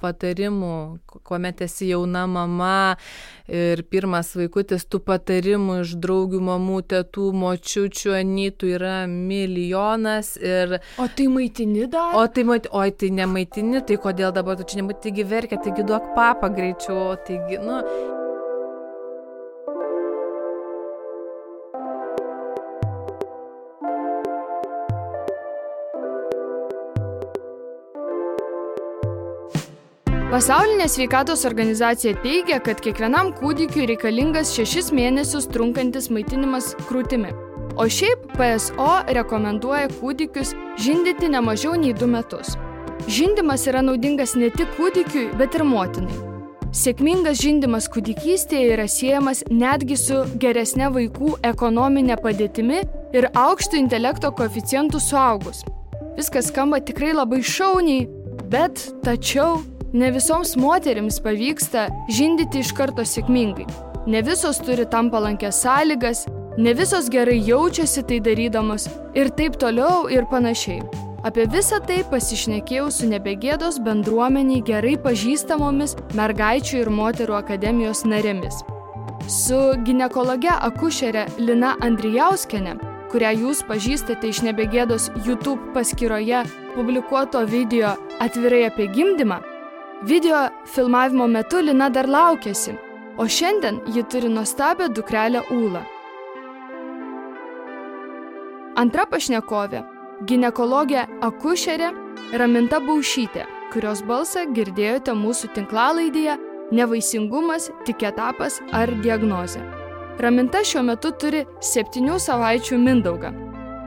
patarimų, kuomet esi jauna mama ir pirmas vaikutis, tų patarimų iš draugių, mamų, tetų, močiučių, anytų yra milijonas. O tai maitini dar? Oi, tai nemaitini, tai kodėl dabar tu čia nemaitini, taigi verkia, taigi duok papą greičiau, taigi, Pasaulinė sveikatos organizacija teigia, kad kiekvienam kūdikiui reikalingas 6 mėnesius trunkantis maitinimas krūtimi. O šiaip PSO rekomenduoja kūdikius žindyti ne mažiau nei 2 metus. Žindymas yra naudingas ne tik kūdikiui, bet ir motinai. Sėkmingas žindymas kūdikystėje yra siejamas netgi su geresne vaikų ekonominė padėtimi ir aukštu intelekto koeficientu suaugus. Viskas skamba tikrai labai šauniai, bet tačiau ne visoms moterims pavyksta žindyti iš karto sėkmingai. Ne visos turi tam palankias sąlygas, ne visos gerai jaučiasi tai darydamos ir taip toliau ir panašiai. Apie visą tai pasišnekėjau su Nebegėdos bendruomeniai gerai pažįstamomis mergaičių ir moterų akademijos narėmis. Su ginekologe akušere Lina Andrijauskiene, kurią jūs pažįstate iš Nebegėdos YouTube paskyroje publikuoto video Atvirai apie gimdymą, video filmavimo metu Lina dar laukėsi, o šiandien ji turi nuostabią dukrelę Ūlą. Antra pašnekovė – ginekologė akušerė Raminta Baušytė, kurios balsą girdėjote mūsų tinklalaidėje Nevaisingumas, tik etapas ar diagnozė. Raminta šiuo metu turi 7 savaičių mindaugą.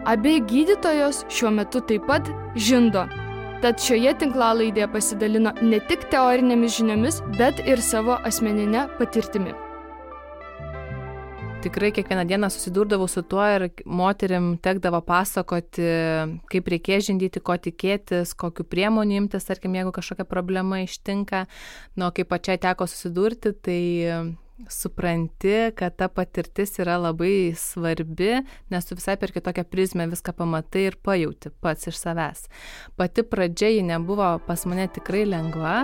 Abi gydytojos šiuo metu taip pat žindo. Tad šioje tinklalaidėje pasidalino ne tik teorinėmis žiniomis, bet ir savo asmeninę patirtimi. Tikrai kiekvieną dieną susidurdavau su tuo ir moterim tekdavo pasakoti, kaip reikės žindyti, ko tikėtis, kokiu priemonių imtis, tarkim, jeigu kažkokia problema ištinka. Kai pačiai teko susidurti, tai supranti, kad ta patirtis yra labai svarbi, nes tu visai per kitokią prizmę viską pamatai ir pajauti pats iš savęs. Pati pradžia ji nebuvo pas mane tikrai lengva.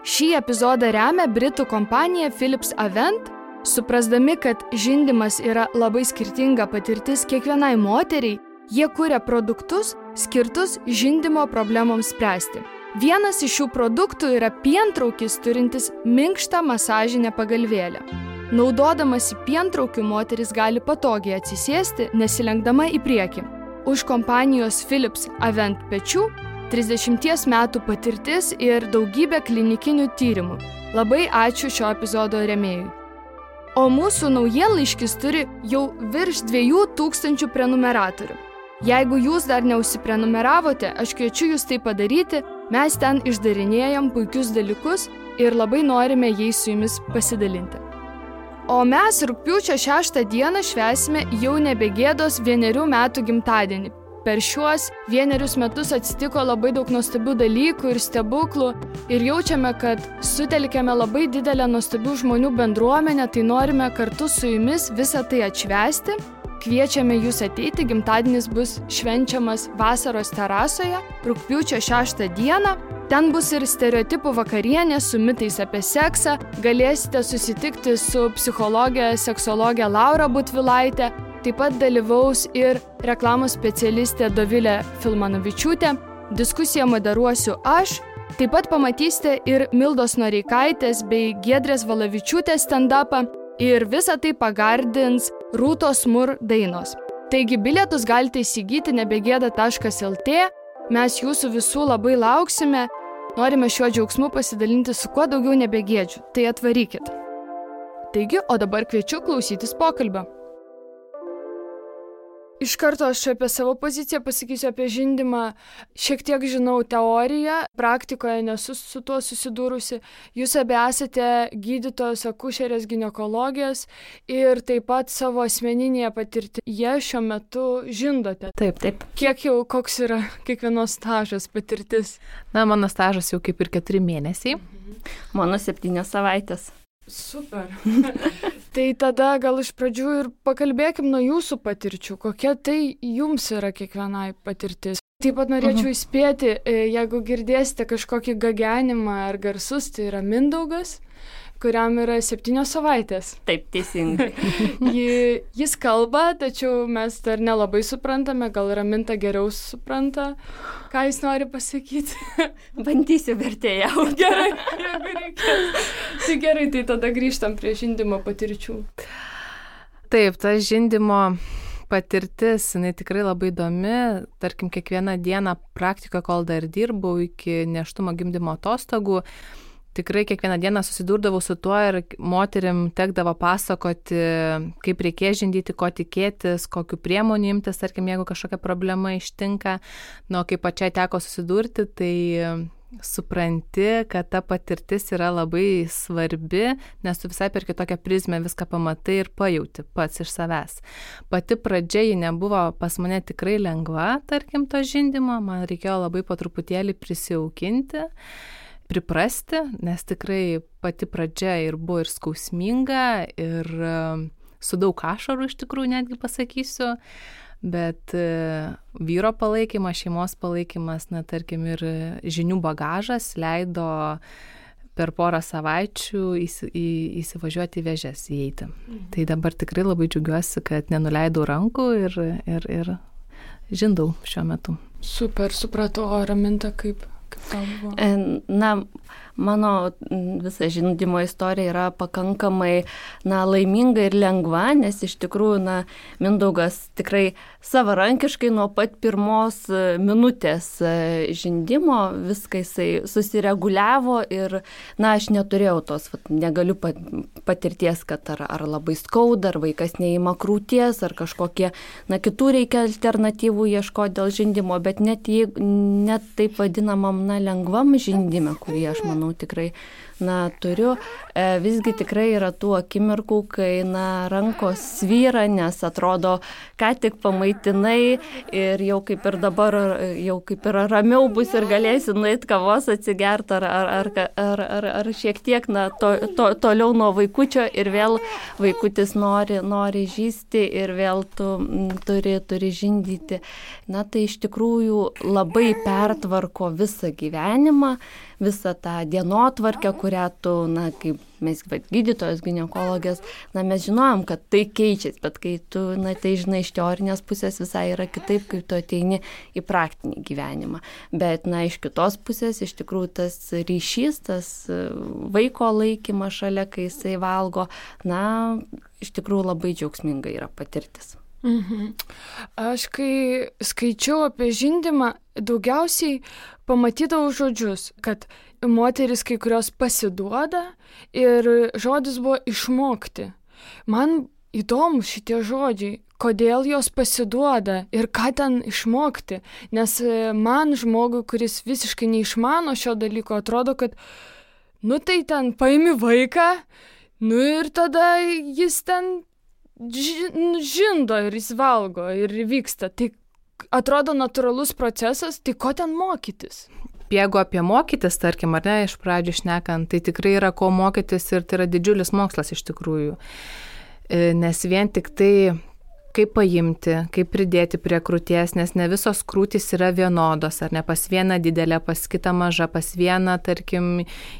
Šį epizodą remia britų kompanija Philips Avent, suprasdami, kad žindymas yra labai skirtinga patirtis kiekvienai moteriai, jie kuria produktus skirtus žindymo problemoms spręsti. Vienas iš šių produktų yra pientraukis turintis minkštą masažinę pagalvėlę. Naudodamasi pientraukiu moteris gali patogiai atsisėsti, nesilenkdama į priekį. Už kompanijos Philips Avent pečių 30 metų patirtis ir daugybė klinikinių tyrimų. Labai ačiū šio epizodo rėmėjui. O mūsų naujienlaiškis turi jau virš 2000 prenumeratorių. Jeigu jūs dar neužsiprenumeravote, aš kviečiu jūs tai padaryti, mes ten išdarinėjam puikius dalykus ir labai norime jais su jumis pasidalinti. O mes rugpjūčio 6 dieną švęsime jau Nebegėdos 1 metų gimtadienį. Per šiuos 1 metus atsitiko labai daug nuostabių dalykų ir stebuklų ir jaučiame, kad sutelkėme labai didelę nuostabių žmonių bendruomenę, tai norime kartu su jumis visą tai atšvęsti. Kviečiame jūs ateiti, gimtadienis bus švenčiamas vasaros terasoje, rugpjūčio 6 dieną. Ten bus ir stereotipų vakarienė su mitais apie seksą, galėsite susitikti su psichologė, seksologė Laura Butvilaitė, taip pat dalyvaus ir reklamos specialistė Dovilė Filmanovičiūtė, diskusiją moderuosiu aš, taip pat pamatysite ir Mildos Noreikaitės bei Giedrės Valavičiūtės stand-upą ir visą tai pagardins Rūtos Mur dainos. Taigi bilietus galite įsigyti nebegėda.lt, mes jūsų visų labai lauksime, norime šiuo džiaugsmu pasidalinti su kuo daugiau nebegėdžių, tai atvarykit. Taigi, o dabar kviečiu klausytis pokalbio. Iš karto aš apie savo poziciją pasakysiu apie žindymą. Šiek tiek žinau teoriją, praktikoje nesu su tuo susidūrusi. Jūs abi esate gydytojos, akušerės, ginekologės ir taip pat savo asmeninėje patirtyje šiuo metu žindote. Taip. Koks yra kiekvienos stažas patirtis? Mano stažas jau kaip ir 4 mėnesiai. Mano 7 savaitės. Super. Tai tada gal iš pradžių ir pakalbėkim nuo jūsų patirčių. Kokia tai jums yra kiekvienai patirtis? Taip pat norėčiau įspėti, jeigu girdėsite kažkokį gagenimą ar garsus, tai yra Mindaugas, kuriam yra 7 savaitės. Taip, teisingai. Jis kalba, tačiau mes dar nelabai suprantame, gal Raminta geriau supranta, ką jis nori pasakyti. Bandysiu vertėjauti. Gerai, jeigu reikės. Tai gerai, tai tada grįžtam prie žindymo patirčių. Taip, ta žindymo patirtis, jinai tikrai labai įdomi. Tarkim, kiekvieną dieną praktikoje, kol dar dirbau iki nėštumo gimdymo atostogų, tikrai kiekvieną dieną susidurdavau su tuo ir moterim tekdavo pasakoti, kaip reikės žindyti, ko tikėtis, kokiu priemonių imtis, tarkim, jeigu kažkokia problema ištinka. Kai pačiai teko susidurti, tai supranti, kad ta patirtis yra labai svarbi, nes tu visai per kitokią prizmę viską pamatai ir pajauti pats iš savęs. Pati pradžia ji nebuvo pas mane tikrai lengva, tarkim, to žindymo, man reikėjo labai po truputėlį prisijaukinti, priprasti, nes tikrai pati pradžia ir buvo ir skausminga, ir su daug ašarų iš tikrųjų netgi pasakysiu, bet vyro palaikymas, šeimos palaikymas, tarkim, ir žinių bagažas leido per porą savaičių įsivažiuoti į vėžes, įeiti. Tai dabar tikrai labai džiaugiuosi, kad nenuleidau rankų ir žindau šiuo metu. Super, supratau, o Raminta kaip tau buvo? Mano visa žindymo istorija yra pakankamai laiminga ir lengva, nes iš tikrųjų Mindaugas tikrai savarankiškai nuo pat pirmos minutės žindymo viską jisai susireguliavo ir aš neturėjau tos, negaliu patirties, kad ar labai skauda, ar vaikas neima krūties, ar kažkokie kitų reikia alternatyvų ieškoti dėl žindymo, bet net taip vadinamam lengvam žindyme, kurį aš manau tikrai turiu, visgi tikrai yra tų akimirkų, kai rankos svyra, nes atrodo, ką tik pamaitinai ir jau kaip ir dabar, jau kaip ir ramiau bus ir galėsi nueiti kavos atsigerti ar šiek tiek toliau nuo vaikučio ir vėl vaikutis nori žysti ir vėl tu turi žindyti. Tai iš tikrųjų labai pertvarko visą gyvenimą, visą tą dienotvarkę, kurią tu, kaip mes gydytojas, ginekologės, mes žinojom, kad tai keičiasi, bet kai tu tai žinai iš teorinės pusės visai yra kitaip, kai tu ateini į praktinį gyvenimą. Bet iš kitos pusės iš tikrųjų tas ryšys, tas vaiko laikymas šalia, kai jisai valgo, iš tikrųjų labai džiaugsminga yra patirtis. Aš kai skaičiau apie žindymą, daugiausiai pamatydavau žodžius, kad moteris kai kurios pasiduoda ir žodis buvo išmokti. Man įdomu šitie žodžiai, kodėl jos pasiduoda ir ką ten išmokti, nes man žmogui, kuris visiškai neišmano šio dalyko, atrodo, kad tai ten paimi vaiką, ir tada jis ten žindo ir jis valgo ir vyksta. Tai atrodo natūralus procesas, tai ko ten mokytis? Jeigu apie mokytis, tarkim, ar ne, iš pradžių šnekant, tai tikrai yra ko mokytis ir tai yra didžiulis mokslas iš tikrųjų. Nes vien tik tai, kaip paimti, kaip pridėti prie krūties, nes ne visos krūtys yra vienodos, ar ne, pas vieną didelę, pas kitą mažą, pas vieną, tarkim,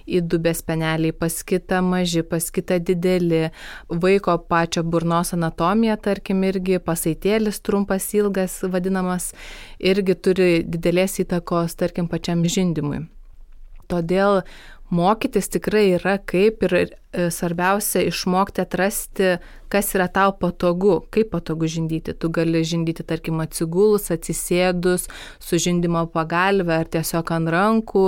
į dubės speneliai, pas kitą maži, pas kitą dideli, vaiko pačio burnos anatomija, tarkim, irgi pasaitėlis trumpas, ilgas vadinamas, irgi turi didelės įtakos, tarkim, pačiam žindymui. Todėl mokytis tikrai yra kaip ir svarbiausia išmokti atrasti, kas yra tau patogu, kaip patogu žindyti. Tu gali žindyti, tarkim, atsigulus, atsisėdus, su žindymo pagalve ar tiesiog ant rankų.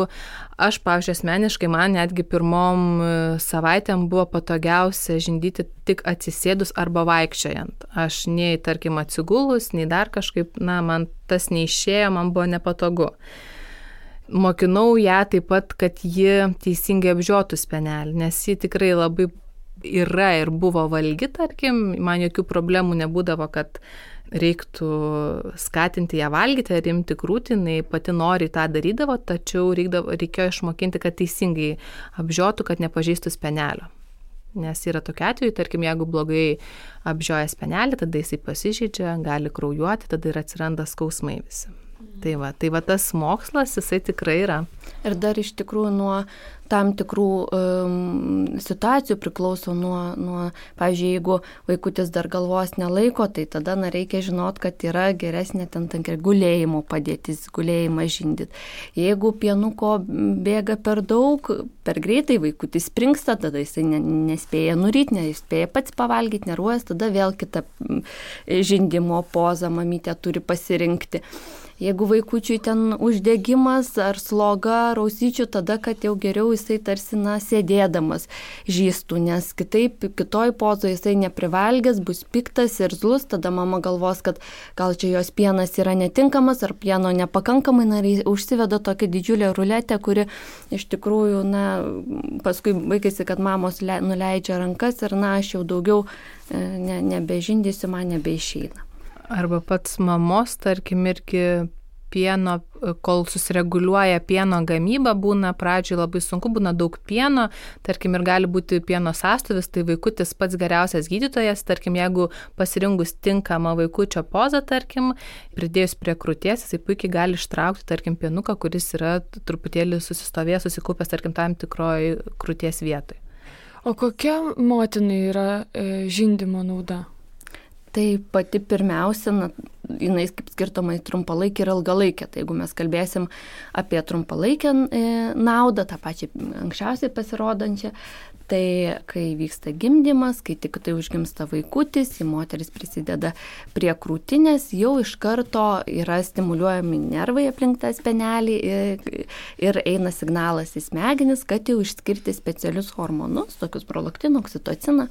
Aš, pavyzdžiui, asmeniškai, man netgi pirmom savaitėm buvo patogiausia žindyti tik atsisėdus arba vaikščiojant. Aš nei, tarkim, atsigulus, nei dar kažkaip, man tas neišėjo, man buvo nepatogu. Mokinau ją taip pat, kad ji teisingai apžiotų spenelį, nes ji tikrai labai yra ir buvo valgi, tarkim, man jokių problemų nebūdavo, kad reiktų skatinti ją valgyti ar imti krūtį, jinai pati nori tą darydavo, tačiau reikėjo išmokinti, kad teisingai apžiotų, kad nepažeistų spenelio. Nes yra tokia atveju, tarkim, jeigu blogai apžioja spenelį, tada jisai pasižeidžia, gali kraujuoti, tada ir atsiranda skausmai visi. Tai va tas mokslas, jisai tikrai yra. Ir dar iš tikrųjų nuo tam tikrų situacijų priklauso nuo, pavyzdžiui, jeigu vaikutis dar galvos nelaiko, tai tada reikia žinot, kad yra geresnė ten gulėjimo padėtis, gulėjimą žindyti. Jeigu pienuko bėga per daug, per greitai vaikutis springsta, tada jisai nespėja nuryti, nespėja pats pavalgyti, neruojas, tada vėl kita žindimo poza mamytė turi pasirinkti. Jeigu vaikučiui ten uždegimas ar sloga, rausyčių, tada, kad jau geriau jisai tarsi sėdėdamas žįstų, nes kitoj pozoje jisai neprivalgęs, bus piktas ir zlus, tada mama galvos, kad gal čia jos pienas yra netinkamas ar pieno nepakankamai, ir užsiveda tokia didžiulė ruletė, kuri iš tikrųjų, paskui baigėsi, kad mamos nuleidžia rankas ir aš jau daugiau nebežindysiu, man nebeišeina. Arba pats mamos, tarkim, irgi pieno, kol susireguliuoja pieno gamyba, būna pradžioj labai sunku, būna daug pieno, tarkim, ir gali būti pieno sąstuvis, tai vaikutis pats geriausias gydytojas, tarkim, jeigu pasirinkus tinkamą vaikučio pozą, tarkim, pridėjus prie krūties, jisai puikiai gali ištraukti, tarkim, pienuką, kuris yra truputėlį susistovėjęs, susikūpęs, tarkim, tam tikroj krūties vietoj. O kokia motinai yra žindymo nauda? Tai pati pirmiausia, jinai kaip skirtoma į trumpalaikę ir ilgalaikę. Tai jeigu mes kalbėsim apie trumpalaikę naudą, tą pačią anksčiausiai pasirodančią, tai kai vyksta gimdymas, kai tik tai užgimsta vaikutis, moteris prisideda prie krūtinės, jau iš karto yra stimuliuojami nervai aplink tą spenelį ir eina signalas į smegenis, kad jau išskirti specialius hormonus, tokius prolaktiną, oksitociną.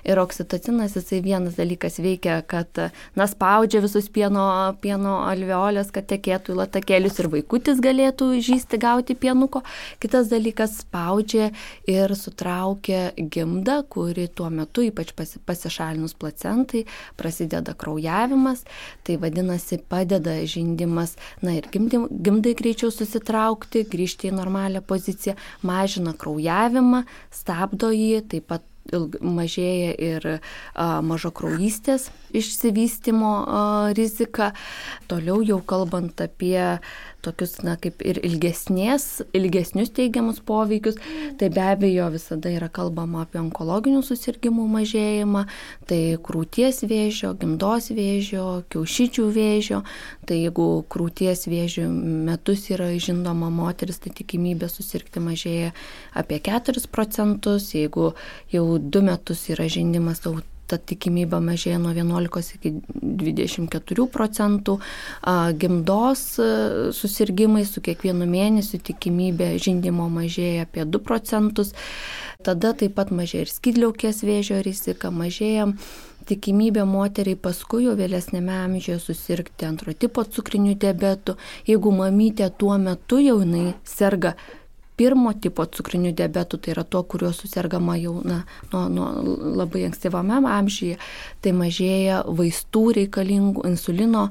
Ir oksitocinas, jisai vienas dalykas veikia, kad spaudžia visus pieno alveolės, kad tekėtų į latakėlius ir vaikutis galėtų žįsti, gauti pienuko. Kitas dalykas spaudžia ir sutraukia gimdą, kuri tuo metu, ypač pasišalinus placentai, prasideda kraujavimas. Tai vadinasi, padeda žindymas, ir gimdai greičiau susitraukti, grįžti į normalią poziciją, mažina kraujavimą, stabdo jį, taip pat mažėja ir mažakraujystės išsivystymo rizika. Toliau jau kalbant apie tokius, kaip ir ilgesnius teigiamus poveikius, tai be abejo visada yra kalbama apie onkologinių susirgymų mažėjimą, tai krūties vėžio, gimdos vėžio, kiaušidžių vėžio. Tai jeigu krūties vėžio metus yra žindoma moteris, tai tikimybė susirgti mažėja apie 4%, jeigu jau 2 metus yra žindymas, ta tikimybė mažėja nuo 11 iki 24%, gimdos susirgymai su kiekvienu mėnesiu tikimybė žindymo mažėja apie 2%, tada taip pat mažėja ir skydliaukės vėžio rizika, mažėja tikimybė moteriai paskui jau vėlesnėme amžiuje susirgti antro tipo cukriniu diabetu, jeigu mamytė tuo metu jau jinai serga pirmo tipo cukriniu diabetu, tai yra tuo, kuriuo susergama jau nuo labai ankstyvame amžiuje, tai mažėja vaistų reikalingų, insulino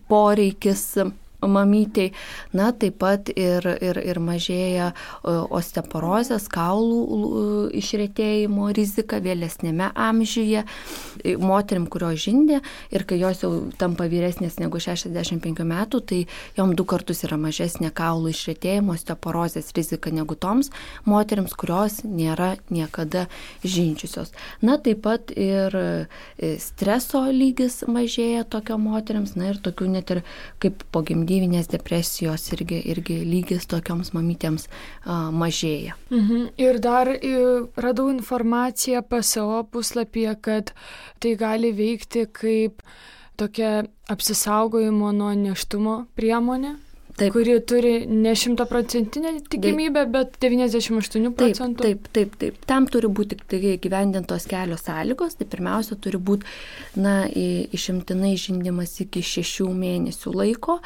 poreikis mamytei, taip pat ir mažėja osteoporozės, kaulų išretėjimo rizika vėlesnėme amžiuje. Moterim, kurios žindė ir kai jos jau tampa vyresnės negu 65 metų, tai jom 2 kartus yra mažesnė kaulų išretėjimo, osteoporozės rizika negu toms moterims, kurios nėra niekada žindžiusios. Taip pat ir streso lygis mažėja tokio moterims, ir tokių net ir kaip po gimdyvinės depresijos irgi lygis tokioms mamytėms mažėja. Ir dar radau informaciją PSO puslapyje, kad tai gali veikti kaip tokia apsisaugojimo nuo nėštumo priemonė. Taip. Kuri turi ne 100% tikimybę, bet 98%. Taip. Tam turi būti įgyvendintos kelios sąlygos. Tai pirmiausia turi būti išimtinai žindymas iki 6 mėnesių laiko.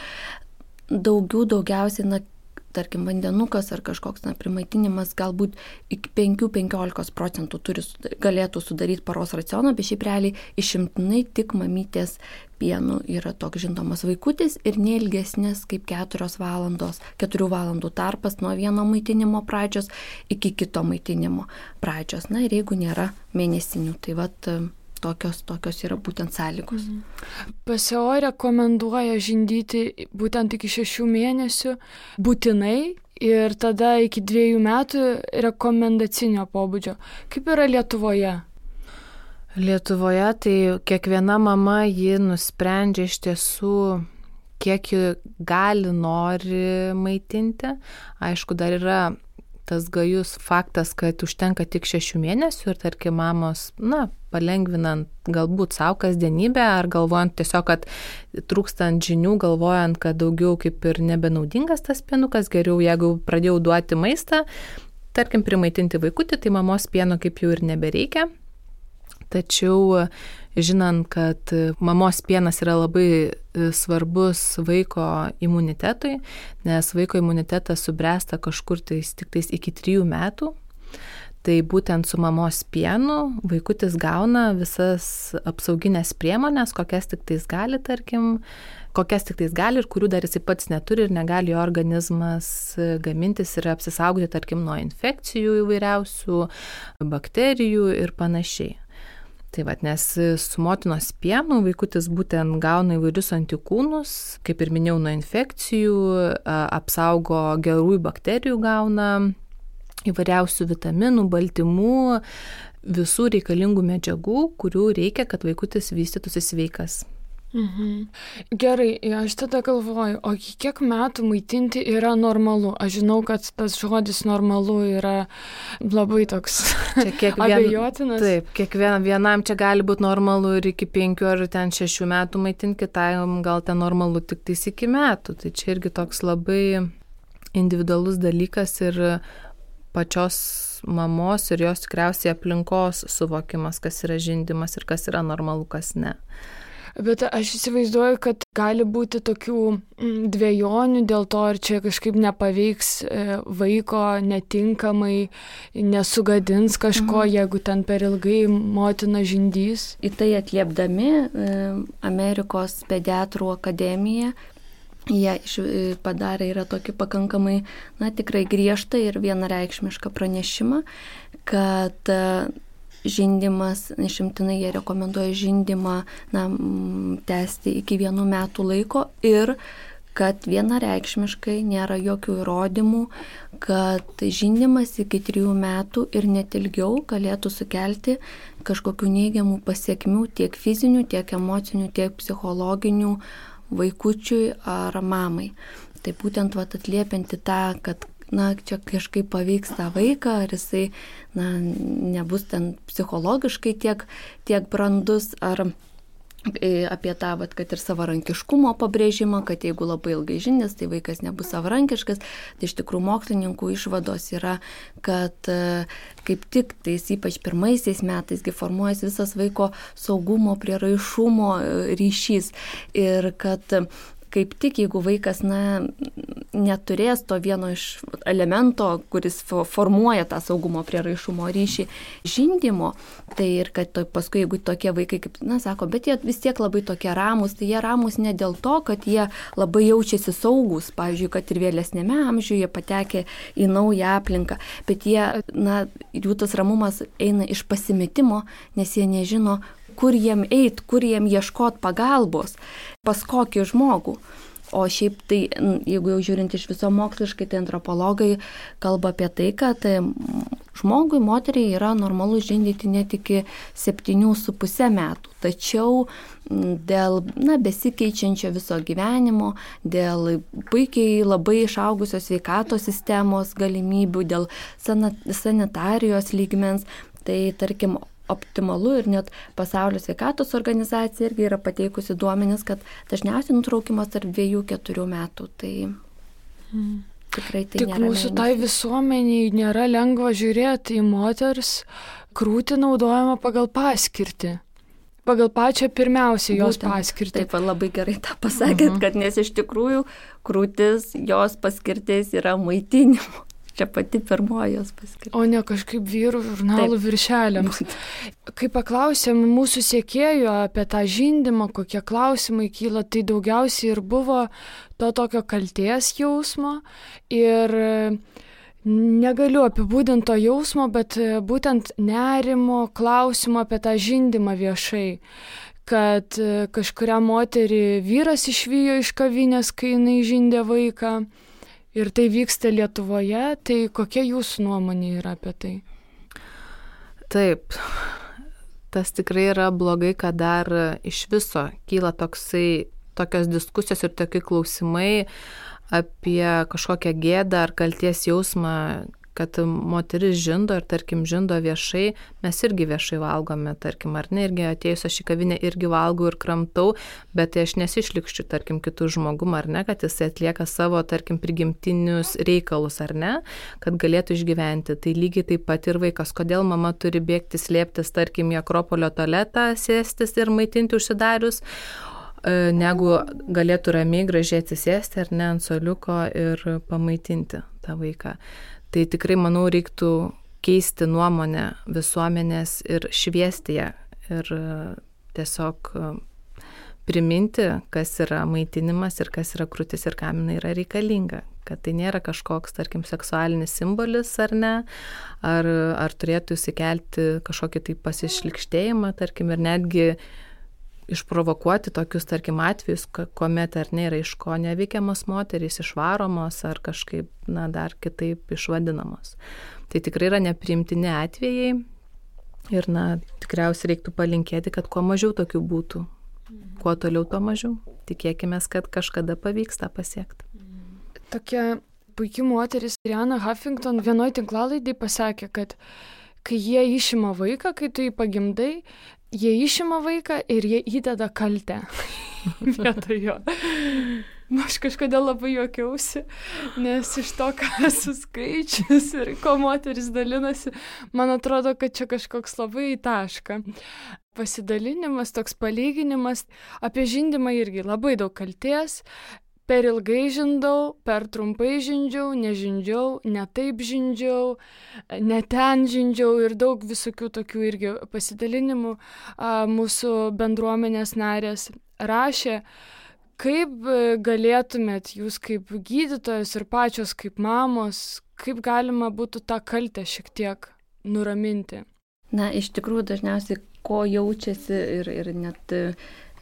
Daugiausiai, tarkim, vandenukas ar kažkoks primaitinimas galbūt iki 5-15% galėtų sudaryti paros racioną, bet šiaip realiai išimtinai tik mamytės pienu yra toks žindomas vaikutis ir neilgesnės kaip 4 valandų tarpas nuo vieno maitinimo pradžios iki kito maitinimo pradžios. Ir jeigu nėra mėnesinių, tai tokios yra būtent sąlygos. PSO rekomenduoja žindyti būtent iki 6 mėnesių būtinai ir tada iki 2 metų rekomendacinio pobūdžio. Kaip yra Lietuvoje? Lietuvoje tai kiekviena mama ji nusprendžia iš tiesų, kiek ji nori maitinti. Aišku, dar yra tas gajus faktas, kad užtenka tik 6 mėnesių ir tarkim mamos, palengvinant galbūt savo kasdienybę ar galvojant tiesiog, kad trūkstant žinių, galvojant, kad daugiau kaip ir nebenaudingas tas pienukas, geriau jeigu pradėjau duoti maistą, tarkim primaitinti vaikutį, tai mamos pieno kaip jau ir nebereikia. Tačiau žinant, kad mamos pienas yra labai svarbus vaiko imunitetui, nes vaiko imunitetas subręsta kažkur tiktais iki 3 metų, tai būtent su mamos pienu vaikutis gauna visas apsauginės priemonės, kokias tiktais gali ir kurių dar jisai pats neturi ir negali jo organizmas gamintis ir apsisaugoti, tarkim, nuo infekcijų įvairiausių, bakterijų ir panašiai. Tai nes su motinos pienu vaikutis būtent gauna įvairius antikūnus, kaip ir minėjau, nuo infekcijų, apsaugo gerųjų bakterijų, gauna įvairiausių vitaminų, baltymų, visų reikalingų medžiagų, kurių reikia, kad vaikutis vystytųsi sveikas. Gerai, aš tada galvoju, o kiek metų maitinti yra normalu? Aš žinau, kad tas žodis normalu yra labai toks abejotinas. Taip, vienam čia gali būti normalu ir iki 5 ar 6 metų maitinti, kitam gal ten normalu tik tais iki metų. Tai čia irgi toks labai individualus dalykas ir pačios mamos ir jos tikriausiai aplinkos suvokimas, kas yra žindymas ir kas yra normalu, kas ne. Bet aš įsivaizduoju, kad gali būti tokių dvejonių dėl to, ar čia kažkaip nepaveiks vaiko netinkamai, nesugadins kažko, jeigu ten per ilgai motina žindys. Į tai atliepdami Amerikos pediatrų akademija, jie padarė yra tokį pakankamai, tikrai griežtą ir vienareikšmišką pranešimą, kad žindymas, išimtinai jie rekomenduoja žindymą tęsti iki 1 metų laiko ir kad vienareikšmiškai nėra jokių įrodymų, kad žindymas iki 3 metų ir net ilgiau galėtų sukelti kažkokių neigiamų pasiekmių tiek fizinių, tiek emocinių, tiek psichologinių vaikučiui ar mamai. Tai būtent atliepianti tą, kad čia kažkaip paveiks tą vaiką, ar jisai nebus ten psichologiškai tiek brandus, ar apie tą, kad ir savarankiškumo pabrėžimą, kad jeigu labai ilgai žindys, tai vaikas nebus savarankiškas. Tai iš tikrųjų mokslininkų išvados yra, kad kaip tik tais ypač pirmaisiais metais formuojas visas vaiko saugumo, prieraišumo ryšys ir kad kaip tik jeigu vaikas neturės to vieno iš elemento, kuris formuoja tą saugumo prieraišumo ryšį žindymo, tai ir kad paskui jeigu tokie vaikai, kaip sako, bet jie vis tiek labai tokie ramus, tai jie ramus ne dėl to, kad jie labai jaučiasi saugus, pavyzdžiui, kad ir vėlesnėme amžiuje patekę į naują aplinką, bet jų tas ramumas eina iš pasimetimo, nes jie nežino, kur jiem eit, kur jiem ieškot pagalbos, pas kokį žmogų. O šiaip tai, jeigu jau žiūrint iš viso moksliškai, tai antropologai kalba apie tai, kad žmogui, moteriai yra normalu žindyti net iki 7,5 metų. Tačiau dėl besikeičiančio viso gyvenimo, dėl puikiai labai išaugusios sveikatos sistemos galimybių, dėl sanitarijos lygmens, tai tarkim optimalu ir net Pasaulio sveikatos organizacija irgi yra pateikusi duomenis, kad dažniausiai nutraukimas tarp 2-4 metų. Tai tikrai tai nėra. Tik mūsų tai visuomeniai nėra lengva žiūrėti į moters krūtį naudojama pagal paskirtį. Pagal pačią pirmiausią jos paskirtį. Taip, labai gerai tą pasakėt, kad nes iš tikrųjų krūtis, jos paskirtis yra maitinimo. Čia pati pirmoji jos paskirtis. O ne kažkaip vyrų žurnalų viršeliams. Kai paklausėm mūsų sekėjų apie tą žindymą, kokie klausimai kyla, tai daugiausiai ir buvo to tokio kaltės jausmo ir negaliu apibūdinti to jausmo, bet būtent nerimo klausimo apie tą žindymą viešai. Kad kažkurią moterį vyras išvijo iš kavinės, kai jinai žindė vaiką. Ir tai vyksta Lietuvoje. Tai kokia jūsų nuomonė yra apie tai? Taip, tas tikrai yra blogai, kad dar iš viso kyla tokios diskusijos ir tokie klausimai apie kažkokią gėdą ar kalties jausmą, kad moteris žindo ir, tarkim, žindo viešai, mes irgi viešai valgome, tarkim, ar ne, irgi atėjus aš į kavinę irgi valgau ir kramtau, bet tai aš nesišlikščiu, tarkim, kitų žmogum, ar ne, kad jisai atlieka savo, tarkim, prigimtinius reikalus, ar ne, kad galėtų išgyventi. Tai lygiai taip pat ir vaikas, kodėl mama turi bėgti slėptis, tarkim, į Akropolio tualetą, sėstis ir maitinti užsidarius, negu galėtų ramiai gražiai atsisėsti, ar ne, ant suoliuko ir pamaitinti tą vaiką. Tai tikrai, manau, reiktų keisti nuomonę visuomenės ir šviesti ją ir tiesiog priminti, kas yra maitinimas ir kas yra krūtis ir kam jinai yra reikalinga. Kad tai nėra kažkoks, tarkim, seksualinis simbolis ar ne, ar turėtų įsikelti kažkokį tai pasišlikštėjimą, tarkim, ir netgi išprovokuoti tokius, tarkim, atvejus, kuomet ar ne yra iš ko neveikiamos moterys, išvaromos ar kažkaip, dar kitaip išvadinamos. Tai tikrai yra nepriimtini atvejai ir, tikriausiai reiktų palinkėti, kad kuo mažiau tokių būtų. Kuo toliau, tuo mažiau. Tikėkime, kad kažkada pavyks tą pasiekti. Tokia puikia moteris Arianna Huffington vienoje tinklalaidėje pasakė, kad kai jie išima vaiką, kai tu jį pagimdai, jie išima vaiką ir jie įdeda kaltę vietoj jo. Aš kažkodėl labai juokiausi, nes iš to, ką esu skaičius ir ko moteris dalinasi, man atrodo, kad čia kažkoks labai taška. Pasidalinimas, toks palyginimas, apie žindymą irgi labai daug kaltės. Per ilgai žindau, per trumpai žindžiau, nežindžiau, ne taip žindžiau, ne ten žindžiau ir daug visokių tokių irgi pasidalinimų mūsų bendruomenės narės rašė. Kaip galėtumėt jūs kaip gydytojos ir pačios kaip mamos, kaip galima būtų tą kaltę šiek tiek nuraminti? Iš tikrųjų dažniausiai ko jaučiasi ir net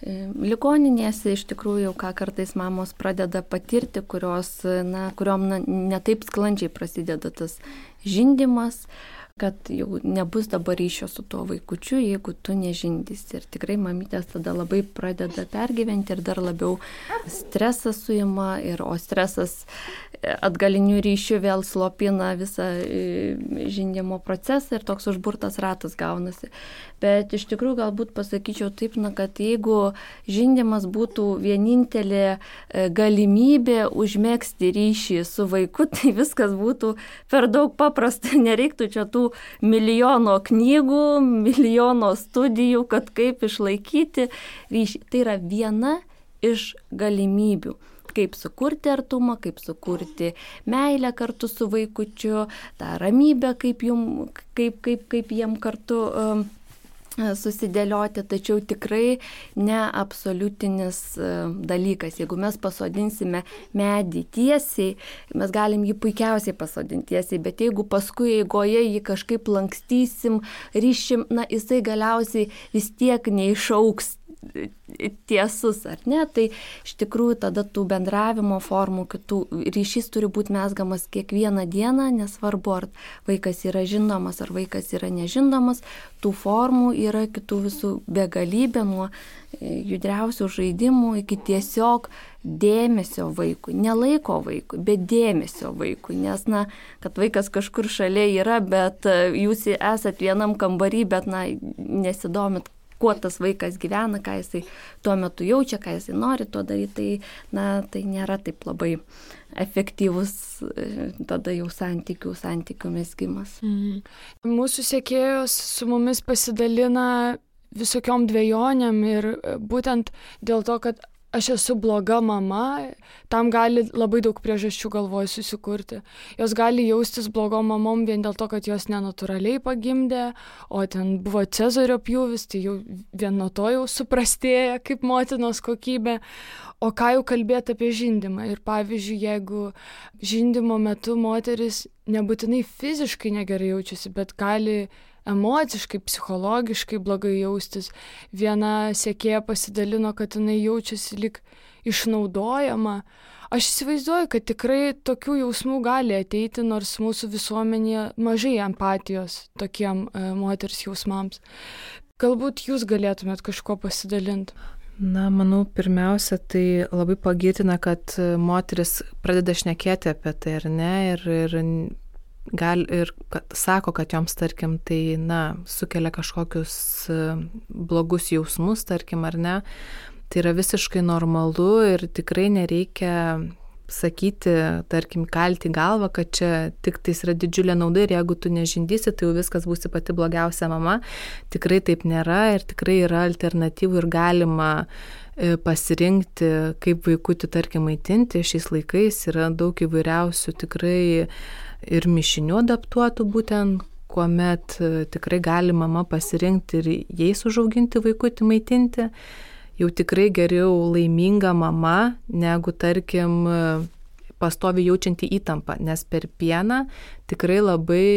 ligoninėse iš tikrųjų, ką kartais mamos pradeda patirti, kuriom netaip sklandžiai prasideda tas žindymas, kad jau nebus dabar ryšio su tuo vaikučiu, jeigu tu nežindysi. Ir tikrai mamytės tada labai pradeda pergyventi ir dar labiau stresas suima, o stresas atgalinių ryšių vėl slopina visą žindymo procesą ir toks užburtas ratas gaunasi. Bet iš tikrųjų galbūt pasakyčiau taip, kad jeigu žindymas būtų vienintelė galimybė užmegzti ryšį su vaiku, tai viskas būtų per daug paprasta. Nereiktų čia tų milijono knygų, milijono studijų, kad kaip išlaikyti ryšį. Tai yra viena iš galimybių. Kaip sukurti artumą, kaip sukurti meilę kartu su vaikučiu, tą ramybę, kaip jiem kartu susidėlioti, tačiau tikrai neabsoliutinis dalykas. Jeigu mes pasodinsime medį tiesiai, mes galim jį puikiausiai pasodinti tiesiai, bet jeigu paskui eigoje jį kažkaip lankstysim, ryšim, jisai galiausiai vis tiek neišauks tiesus, ar ne? Tai iš tikrųjų tada tų bendravimo formų, kitų ryšys turi būti mezgamas kiekvieną dieną, nesvarbu, ar vaikas yra žindomas, ar vaikas yra nežindomas, tų formų yra kitų visų begalybė, nuo judriausių žaidimų iki tiesiog dėmesio vaikui, ne laiko vaikui, bet dėmesio vaikui, nes, kad vaikas kažkur šalia yra, bet jūs esat vienam kambarį, bet, nesidomit, kuo tas vaikas gyvena, ką jisai tuo metu jaučia, ką jisai nori to daryti, tai nėra taip labai efektyvus tada jau santykių mezgimas. Mūsų sekėjos su mumis pasidalina visokiom dvejonėm ir būtent dėl to, kad aš esu bloga mama, tam gali labai daug priežasčių galvoj susikurti. Jos gali jaustis blogom mamom vien dėl to, kad jos nenatūraliai pagimdė, o ten buvo cezario pjūvis, tai jau vien nuo to jau suprastėja kaip motinos kokybė. O ką jau kalbėti apie žindymą? Ir pavyzdžiui, jeigu žindymo metu moteris nebūtinai fiziškai negerai jaučiasi, bet gali emociškai, psichologiškai blogai jaustis. Viena sekėja pasidalino, kad jinai jaučiasi lyg išnaudojama. Aš įsivaizduoju, kad tikrai tokių jausmų gali ateiti, nors mūsų visuomenėje mažai empatijos tokiem moters jausmams. Galbūt jūs galėtumėt kažko pasidalinti? Na, manau, pirmiausia, tai labai pagirtina, kad moteris pradeda šnekėti apie tai, ar ne, ir sako, kad joms, tarkim, tai, sukelia kažkokius blogus jausmus, tarkim, ar ne. Tai yra visiškai normalu ir tikrai nereikia sakyti, tarkim, kalti galvą, kad čia tik tais yra didžiulė nauda ir jeigu tu nežindysi, tai jau viskas būsi pati blogiausia mama. Tikrai taip nėra ir tikrai yra alternatyvų ir galima pasirinkti, kaip vaikutį, tarkim, maitinti. Šiais laikais yra daug įvairiausių tikrai ir mišinių adaptuotų būtent, kuomet tikrai gali mama pasirinkti ir jais užauginti vaikutį maitinti. Jau tikrai geriau laiminga mama, negu, tarkim, pastovi jaučianti įtampą, nes per pieną tikrai labai,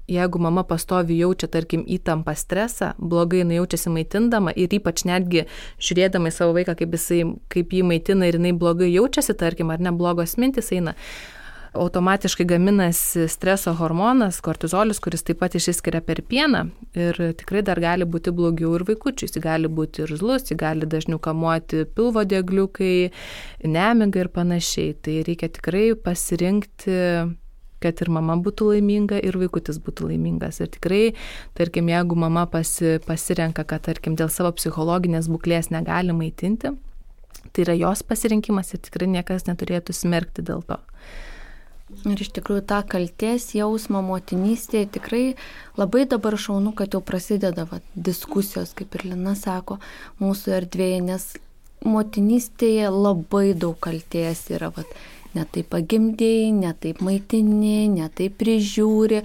jeigu mama pastovi jaučia, tarkim, įtampą, stresą, blogai jinai jaučiasi maitindama ir ypač netgi žiūrėdama į savo vaiką, kaip jį maitina ir jinai blogai jaučiasi, tarkim, ar ne, blogos mintis eina, automatiškai gaminasi streso hormonas, kortizolis, kuris taip pat išsiskiria per pieną ir tikrai dar gali būti blogiau ir vaikučiui. Jis gali būti irzlus, jis gali dažniau kamuoti pilvo diegliukai, nemiga ir panašiai. Tai reikia tikrai pasirinkti, kad ir mama būtų laiminga ir vaikutis būtų laimingas. Ir tikrai, tarkim, jeigu mama pasirenka, kad, tarkim, dėl savo psichologinės būklės negali maitinti, tai yra jos pasirinkimas ir tikrai niekas neturėtų smerkti dėl to. Ir iš tikrųjų tą kaltės jausmą motinystėje tikrai labai dabar šaunu, kad jau prasideda diskusijos, kaip ir Lina sako, mūsų erdvėje, nes motinystėje labai daug kaltės yra, ne taip pagimdėjai, ne taip maitini, ne taip prižiūri.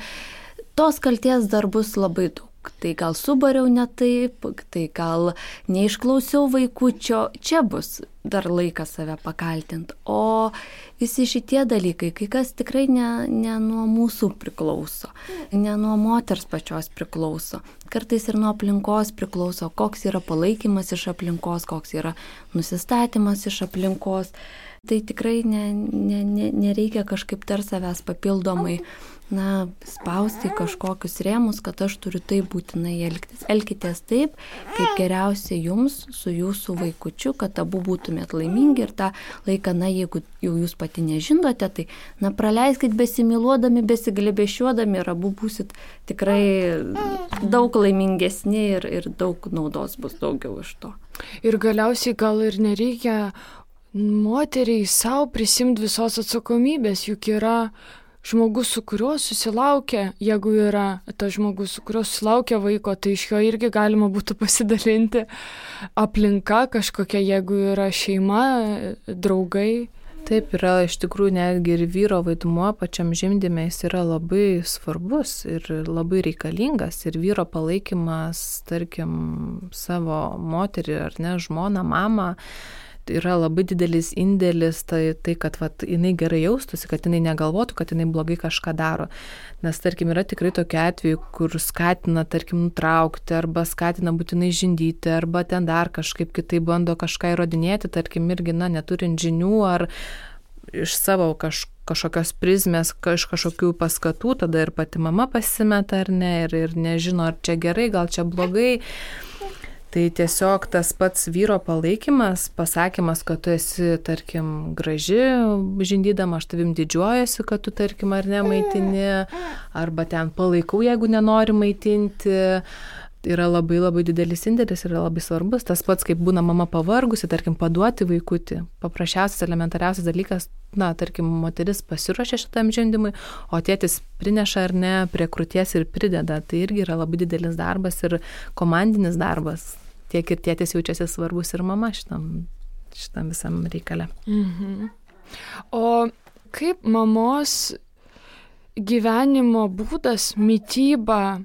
Tos kaltės dar bus labai daug. Tai gal subariau ne taip, tai gal neišklausiau vaikučio, čia bus dar laikas save pakaltinti. O visi šitie dalykai, kai kas tikrai ne nuo mūsų priklauso, ne nuo moters pačios priklauso. Kartais ir nuo aplinkos priklauso, koks yra palaikymas iš aplinkos, koks yra nusistatymas iš aplinkos. Tai tikrai nereikia kažkaip dar savęs papildomai spausti kažkokius rėmus, kad aš turiu taip būtinai elgtis. Elkitės taip, kaip geriausia jums su jūsų vaikučiu, kad abu būtumėt laimingi ir tą laiką, jeigu jau jūs pati nežindote, tai praleiskit besimyluodami, besiglėbėšiuodami ir abu būsit tikrai daug laimingesni ir daug naudos bus daugiau iš to. Ir galiausiai gal ir nereikia moteriai savo prisimti visos atsakomybės, juk yra žmogus, su kuriuo susilaukia, jeigu yra tas žmogus, su kuriuo susilaukia vaiko, tai iš jo irgi galima būtų pasidalinti aplinka kažkokia, jeigu yra šeima, draugai. Taip, yra iš tikrųjų netgi ir vyro vaidmuo pačiam žimdyme, jis yra labai svarbus ir labai reikalingas. Ir vyro palaikymas, tarkim, savo moterį ar ne, žmoną, mamą, yra labai didelis indėlis, tai kad jinai gerai jaustųsi, kad jinai negalvotų, kad jinai blogai kažką daro. Nes, tarkim, yra tikrai tokie atvejai, kur skatina, tarkim, nutraukti, arba skatina būtinai žindyti, arba ten dar kažkaip kitai bando kažką įrodinėti, tarkim, irgi, neturint žinių, ar iš savo kažkokios prizmės, kažkokių paskatų, tada ir pati mama pasimeta, ar ne, ir nežino, ar čia gerai, gal čia blogai. Tai tiesiog tas pats vyro palaikymas, pasakymas, kad tu esi, tarkim, graži žindydama, aš tavim didžiuojasi, kad tu, tarkim, ar ne maitini, arba ten palaikau, jeigu nenori maitinti, yra labai labai didelis indėlis, yra labai svarbus. Tas pats, kaip būna mama pavargusi, tarkim, paduoti vaikutį. Paprasčiausias, elementariausias dalykas, tarkim, moteris pasiruošia šitam žindymui, o tėtis prineša ar ne prie krūties ir prideda. Tai irgi yra labai didelis darbas ir komandinis darbas. Tiek ir tėtis jaučiasi svarbus ir mama šitam visam reikale. O kaip mamos gyvenimo būdas, mityba,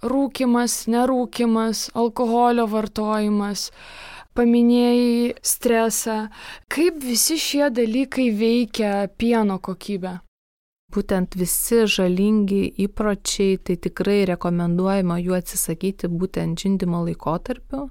rūkymas, nerūkymas, alkoholio vartojimas, paminėjai stresą, kaip visi šie dalykai veikia pieno kokybę? Būtent visi žalingi įpročiai, tai tikrai rekomenduojama jų atsisakyti būtent žindymo laikotarpiu.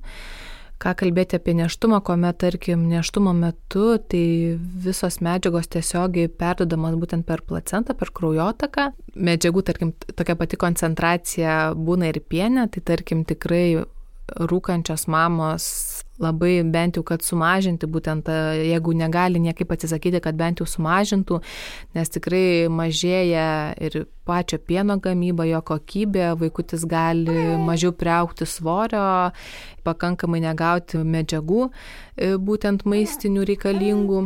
Ką kalbėti apie nėštumą, kuomet, tarkim, nėštumo metu, tai visos medžiagos tiesiogiai perduodamos būtent per placentą, per kraujotaką. Medžiagų, tarkim, tokia pati koncentracija būna ir piene, tai tarkim tikrai rūkančios mamos labai bent jau, kad sumažinti, būtent jeigu negali niekaip atsisakyti, kad bent jau sumažintų, nes tikrai mažėja ir pačio pieno gamyba, jo kokybė, vaikutis gali mažiau priaugti svorio, pakankamai negauti medžiagų, būtent maistinių reikalingų.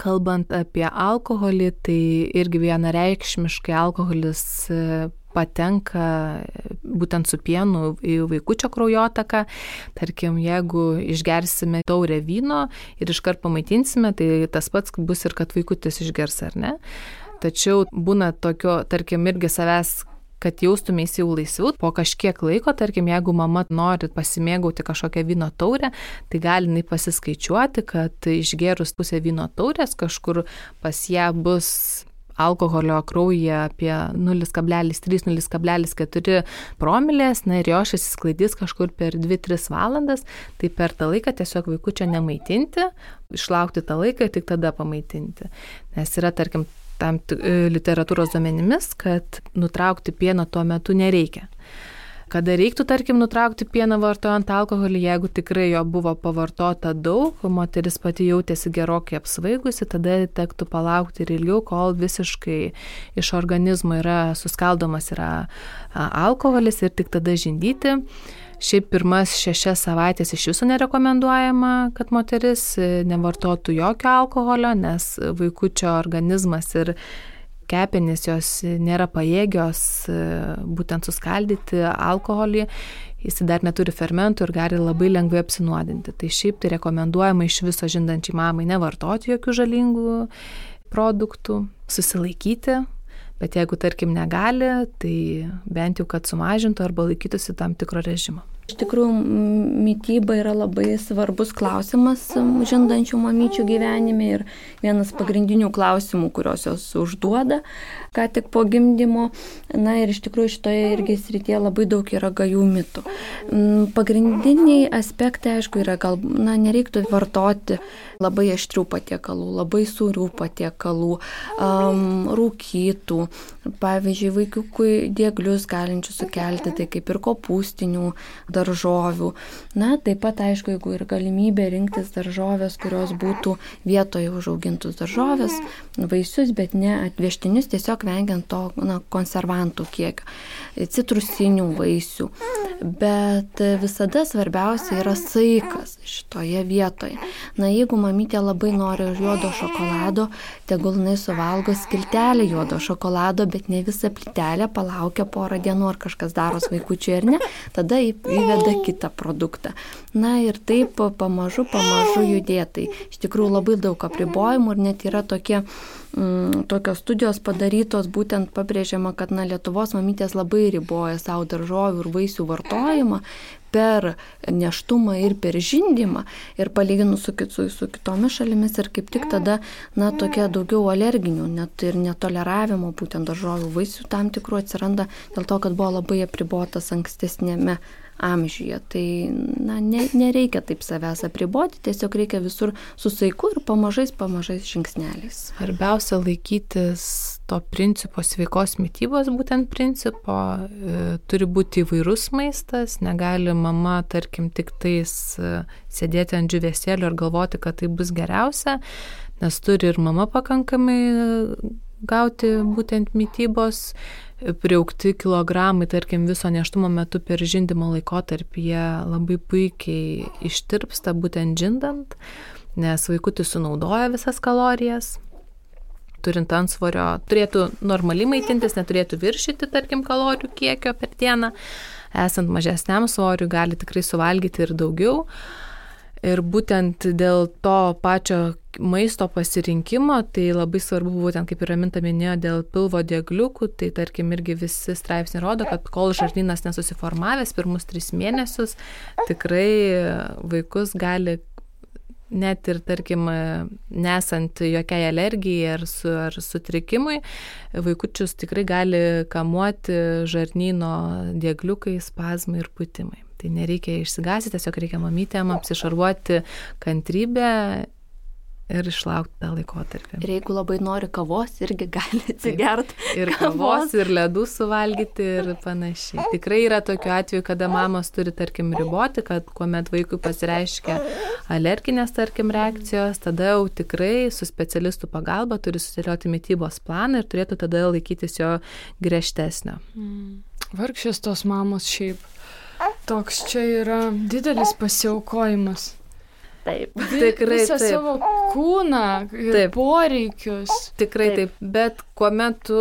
Kalbant apie alkoholį, tai irgi vienareikšmiškai alkoholis patenka būtent su pienu į vaikučio kraujotaką. Tarkim, jeigu išgersime taurę vyno ir iškart pamaitinsime, tai tas pats bus ir kad vaikutis išgers, ar ne? Tačiau būna tokio, tarkim, irgi savęs, kad jaustumės jau laisviau. Po kažkiek laiko, tarkim, jeigu mama nori pasimėgauti kažkokią vyno taurę, tai gali jinai pasiskaičiuoti, kad išgerus pusę vyno taurės kažkur pas ją bus alkoholio kraujyje apie 0,3–0,4 promilės, ir jo išsisklaidys kažkur per 2–3 valandas, tai per tą laiką tiesiog vaikučio nemaitinti, išlaukti tą laiką ir tik tada pamaitinti. Nes yra, tarkim, tam literatūros duomenimis, kad nutraukti pieną tuo metu nereikia. Kada reiktų, tarkim, nutraukti pieną vartojant alkoholį, jeigu tikrai jo buvo pavartota daug, moteris pati jautėsi gerokai apsvaigusi, tada tektų palaukti ir ilgiau, kol visiškai iš organizmo yra suskaldomas alkoholis ir tik tada žindyti. Šiaip pirmas 6 savaitės iš viso nerekomenduojama, kad moteris nevartotų jokio alkoholio, nes vaikučio organizmas ir kepenys jos nėra pajėgios būtent suskaldyti alkoholį, jis dar neturi fermentų ir gali labai lengvai apsinuodinti. Tai šiaip tai rekomenduojama iš viso žindančiai mamai nevartoti jokių žalingų produktų, susilaikyti, bet jeigu, tarkim, negali, tai bent jau, kad sumažintų arba laikytųsi tam tikro režimo. Iš tikrųjų, mityba yra labai svarbus klausimas žindančių mamyčių gyvenime ir vienas pagrindinių klausimų, kuriuos jos užduoda, ką tik po gimdymo. Ir iš tikrųjų šitoje irgi srityje labai daug yra gajų mitų. Pagrindiniai aspektai, aišku, yra nereiktų vartoti labai aštrių patiekalų, labai sūrių patiekalų, rūkytų, pavyzdžiui, vaikiukui dieglius galinčių sukelti, tai kaip ir kopūstinių daržovių. Taip pat, aišku, jeigu ir galimybė rinktis daržovės, kurios būtų vietoje užaugintus daržovės, vaisius, bet ne atvežtinius, tiesiog vengiant to konservantų kiekio, citrusinių vaisių. Bet visada svarbiausia yra saikas šitoje vietoje. Jeigu mamytė labai nori juodo šokolado, tegul jinai suvalgo skiltelę juodo šokolado, bet ne visą plytelę, palaukia porą dienų, ar kažkas daros vaikučiui ar ne, tada įveda kitą produktą. Ir taip pamažu judėtai. Iš tikrųjų labai daug apribojimų ir net yra tokios studijos padarytos, būtent pabrėžiama, kad Lietuvos mamytės labai riboja savo daržovių ir vaisių vartojimą per nėštumą ir per žindymą ir palyginus su kitomis šalimis ir kaip tik tada tokia daugiau alerginių, net ir netoleravimo būtent daržovių vaisių tam tikrų atsiranda dėl to, kad buvo labai apribotas ankstesnėme amžiuje. Tai nereikia taip savęs apriboti, tiesiog reikia visur su saiku ir pamažais žingsneliais. Svarbiausia laikytis to principo, sveikos mitybos būtent principo. Turi būti įvairus maistas, negali mama, tarkim, tik tais sėdėti ant džiūvėsėlio ir galvoti, kad tai bus geriausia, nes turi ir mama pakankamai gauti būtent mitybos. Priaugti kilogramai, tarkim, viso nėštumo metu per žindymo laikotarpį jie labai puikiai ištirpsta būtent žindant, nes vaikutis sunaudoja visas kalorijas. Turint antsvorio, turėtų normaliai maitintis, neturėtų viršyti, tarkim, kalorijų kiekio per dieną. Esant mažesniam svoriui gali tikrai suvalgyti ir daugiau. Ir būtent dėl to pačio maisto pasirinkimo, tai labai svarbu būtent, kaip ir Raminta minėjo, dėl pilvo diegliukų, tai tarkim irgi visi straipsniai rodo, kad kol žarnynas nesusiformavęs pirmus 3 mėnesius, tikrai vaikus gali net ir, tarkim, nesant jokiai alergijai ar sutrikimui, vaikučius tikrai gali kamuoti žarnyno diegliukai, spazmai ir pūtimai. Tai nereikia išsigąsti, tiesiog reikia mamytėm apsišarvuoti kantrybę ir išlaukti tą laikotarpį. Ir jeigu labai nori kavos, irgi gali atsigerti. Ir kavos, ir ledų suvalgyti ir panašiai. Tikrai yra tokių atvejų, kada mamos turi, tarkim, riboti, kad kuomet vaikui pasireiškia alerginės, tarkim, reakcijos, tada jau tikrai su specialistų pagalba turi susidėlioti mitybos planą ir turėtų tada laikytis jo griežtesnio. Vargšės tos mamos šiaip. Toks čia yra didelis pasiaukojimas. Taip. Tikrai visą taip. Savo kūną ir Taip. poreikius. Tikrai taip. Bet kuomet tu,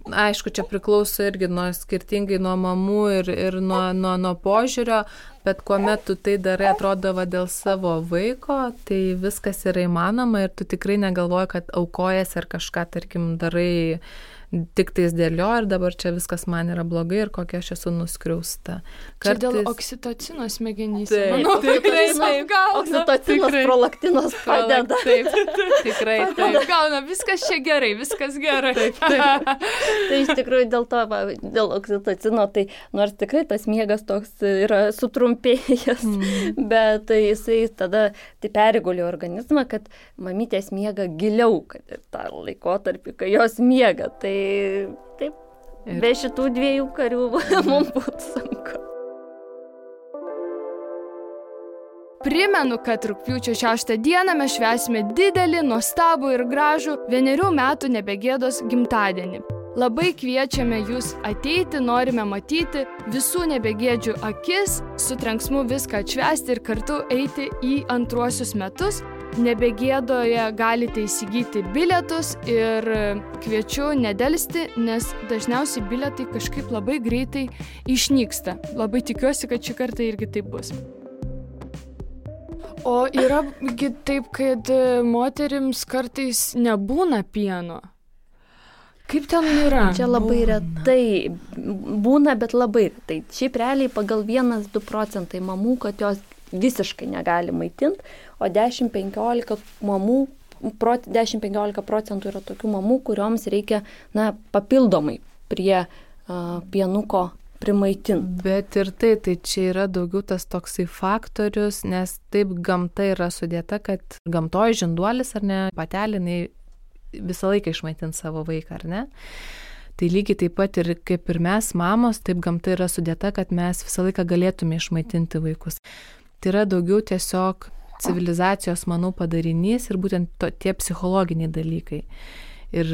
aišku, čia priklauso irgi skirtingai nuo mamų ir nuo požiūrio, bet kuomet tu tai darai, atrodo, dėl savo vaiko, tai viskas yra įmanoma ir tu tikrai negalvoji, kad aukojas ar kažką, tarkim, darai tik tais dėl jo ir dabar čia viskas man yra blogai ir kokia aš esu nuskriausta. Čia dėl oksitocino smegenyse. Taip, Manau, tikrai taip. Oksitocinas, prolaktinas padeda. Taip, tikrai taip. Gauna, viskas čia gerai, viskas gerai. Tai iš tikrųjų dėl oksitocino, tai nors tikrai tas miegas toks yra sutrumpėjęs, bet tai jisai tada tai perigulio organizmą, kad mamytės miega giliau, kad ir tą laikotarpį, kai jos miega. Tai taip, be šitų 2 karių mums būtų sunku. Primenu, kad rugpjūčio 6 dieną mes švęsime didelį, nuostabų ir gražų 1 metų nebegėdos gimtadienį. Labai kviečiame jūs ateiti, norime matyti visų nebegėdžių akis, su trenksmu viską atšvęsti ir kartu eiti į antruosius metus. Nebegėdoje galite įsigyti bilietus ir kviečiu nedelsti, nes dažniausiai bilietai kažkaip labai greitai išnyksta. Labai tikiuosi, kad šį kartą irgi taip bus. O yra taip, kad moterims kartais nebūna pieno. Kaip ten yra? Čia labai retai būna, bet labai retai. Šiaip realiai pagal 1-2 procentai mamų, kad jos visiškai negali maitinti, o 10-15 mamų, 10-15 procentų yra tokių mamų, kurioms reikia papildomai prie pienuko primaitinti. Bet ir tai čia yra daugiau tas toksai faktorius, nes taip gamta yra sudėta, kad gamtoje žinduolis ar ne, patelė, visą laiką išmaitint savo vaiką, ar ne? Tai lygiai taip pat ir kaip ir mes, mamos, taip gamta yra sudėta, kad mes visą laiką galėtume išmaitinti vaikus. Tai yra daugiau tiesiog civilizacijos, manau, padarinys ir būtent tie psichologiniai dalykai. Ir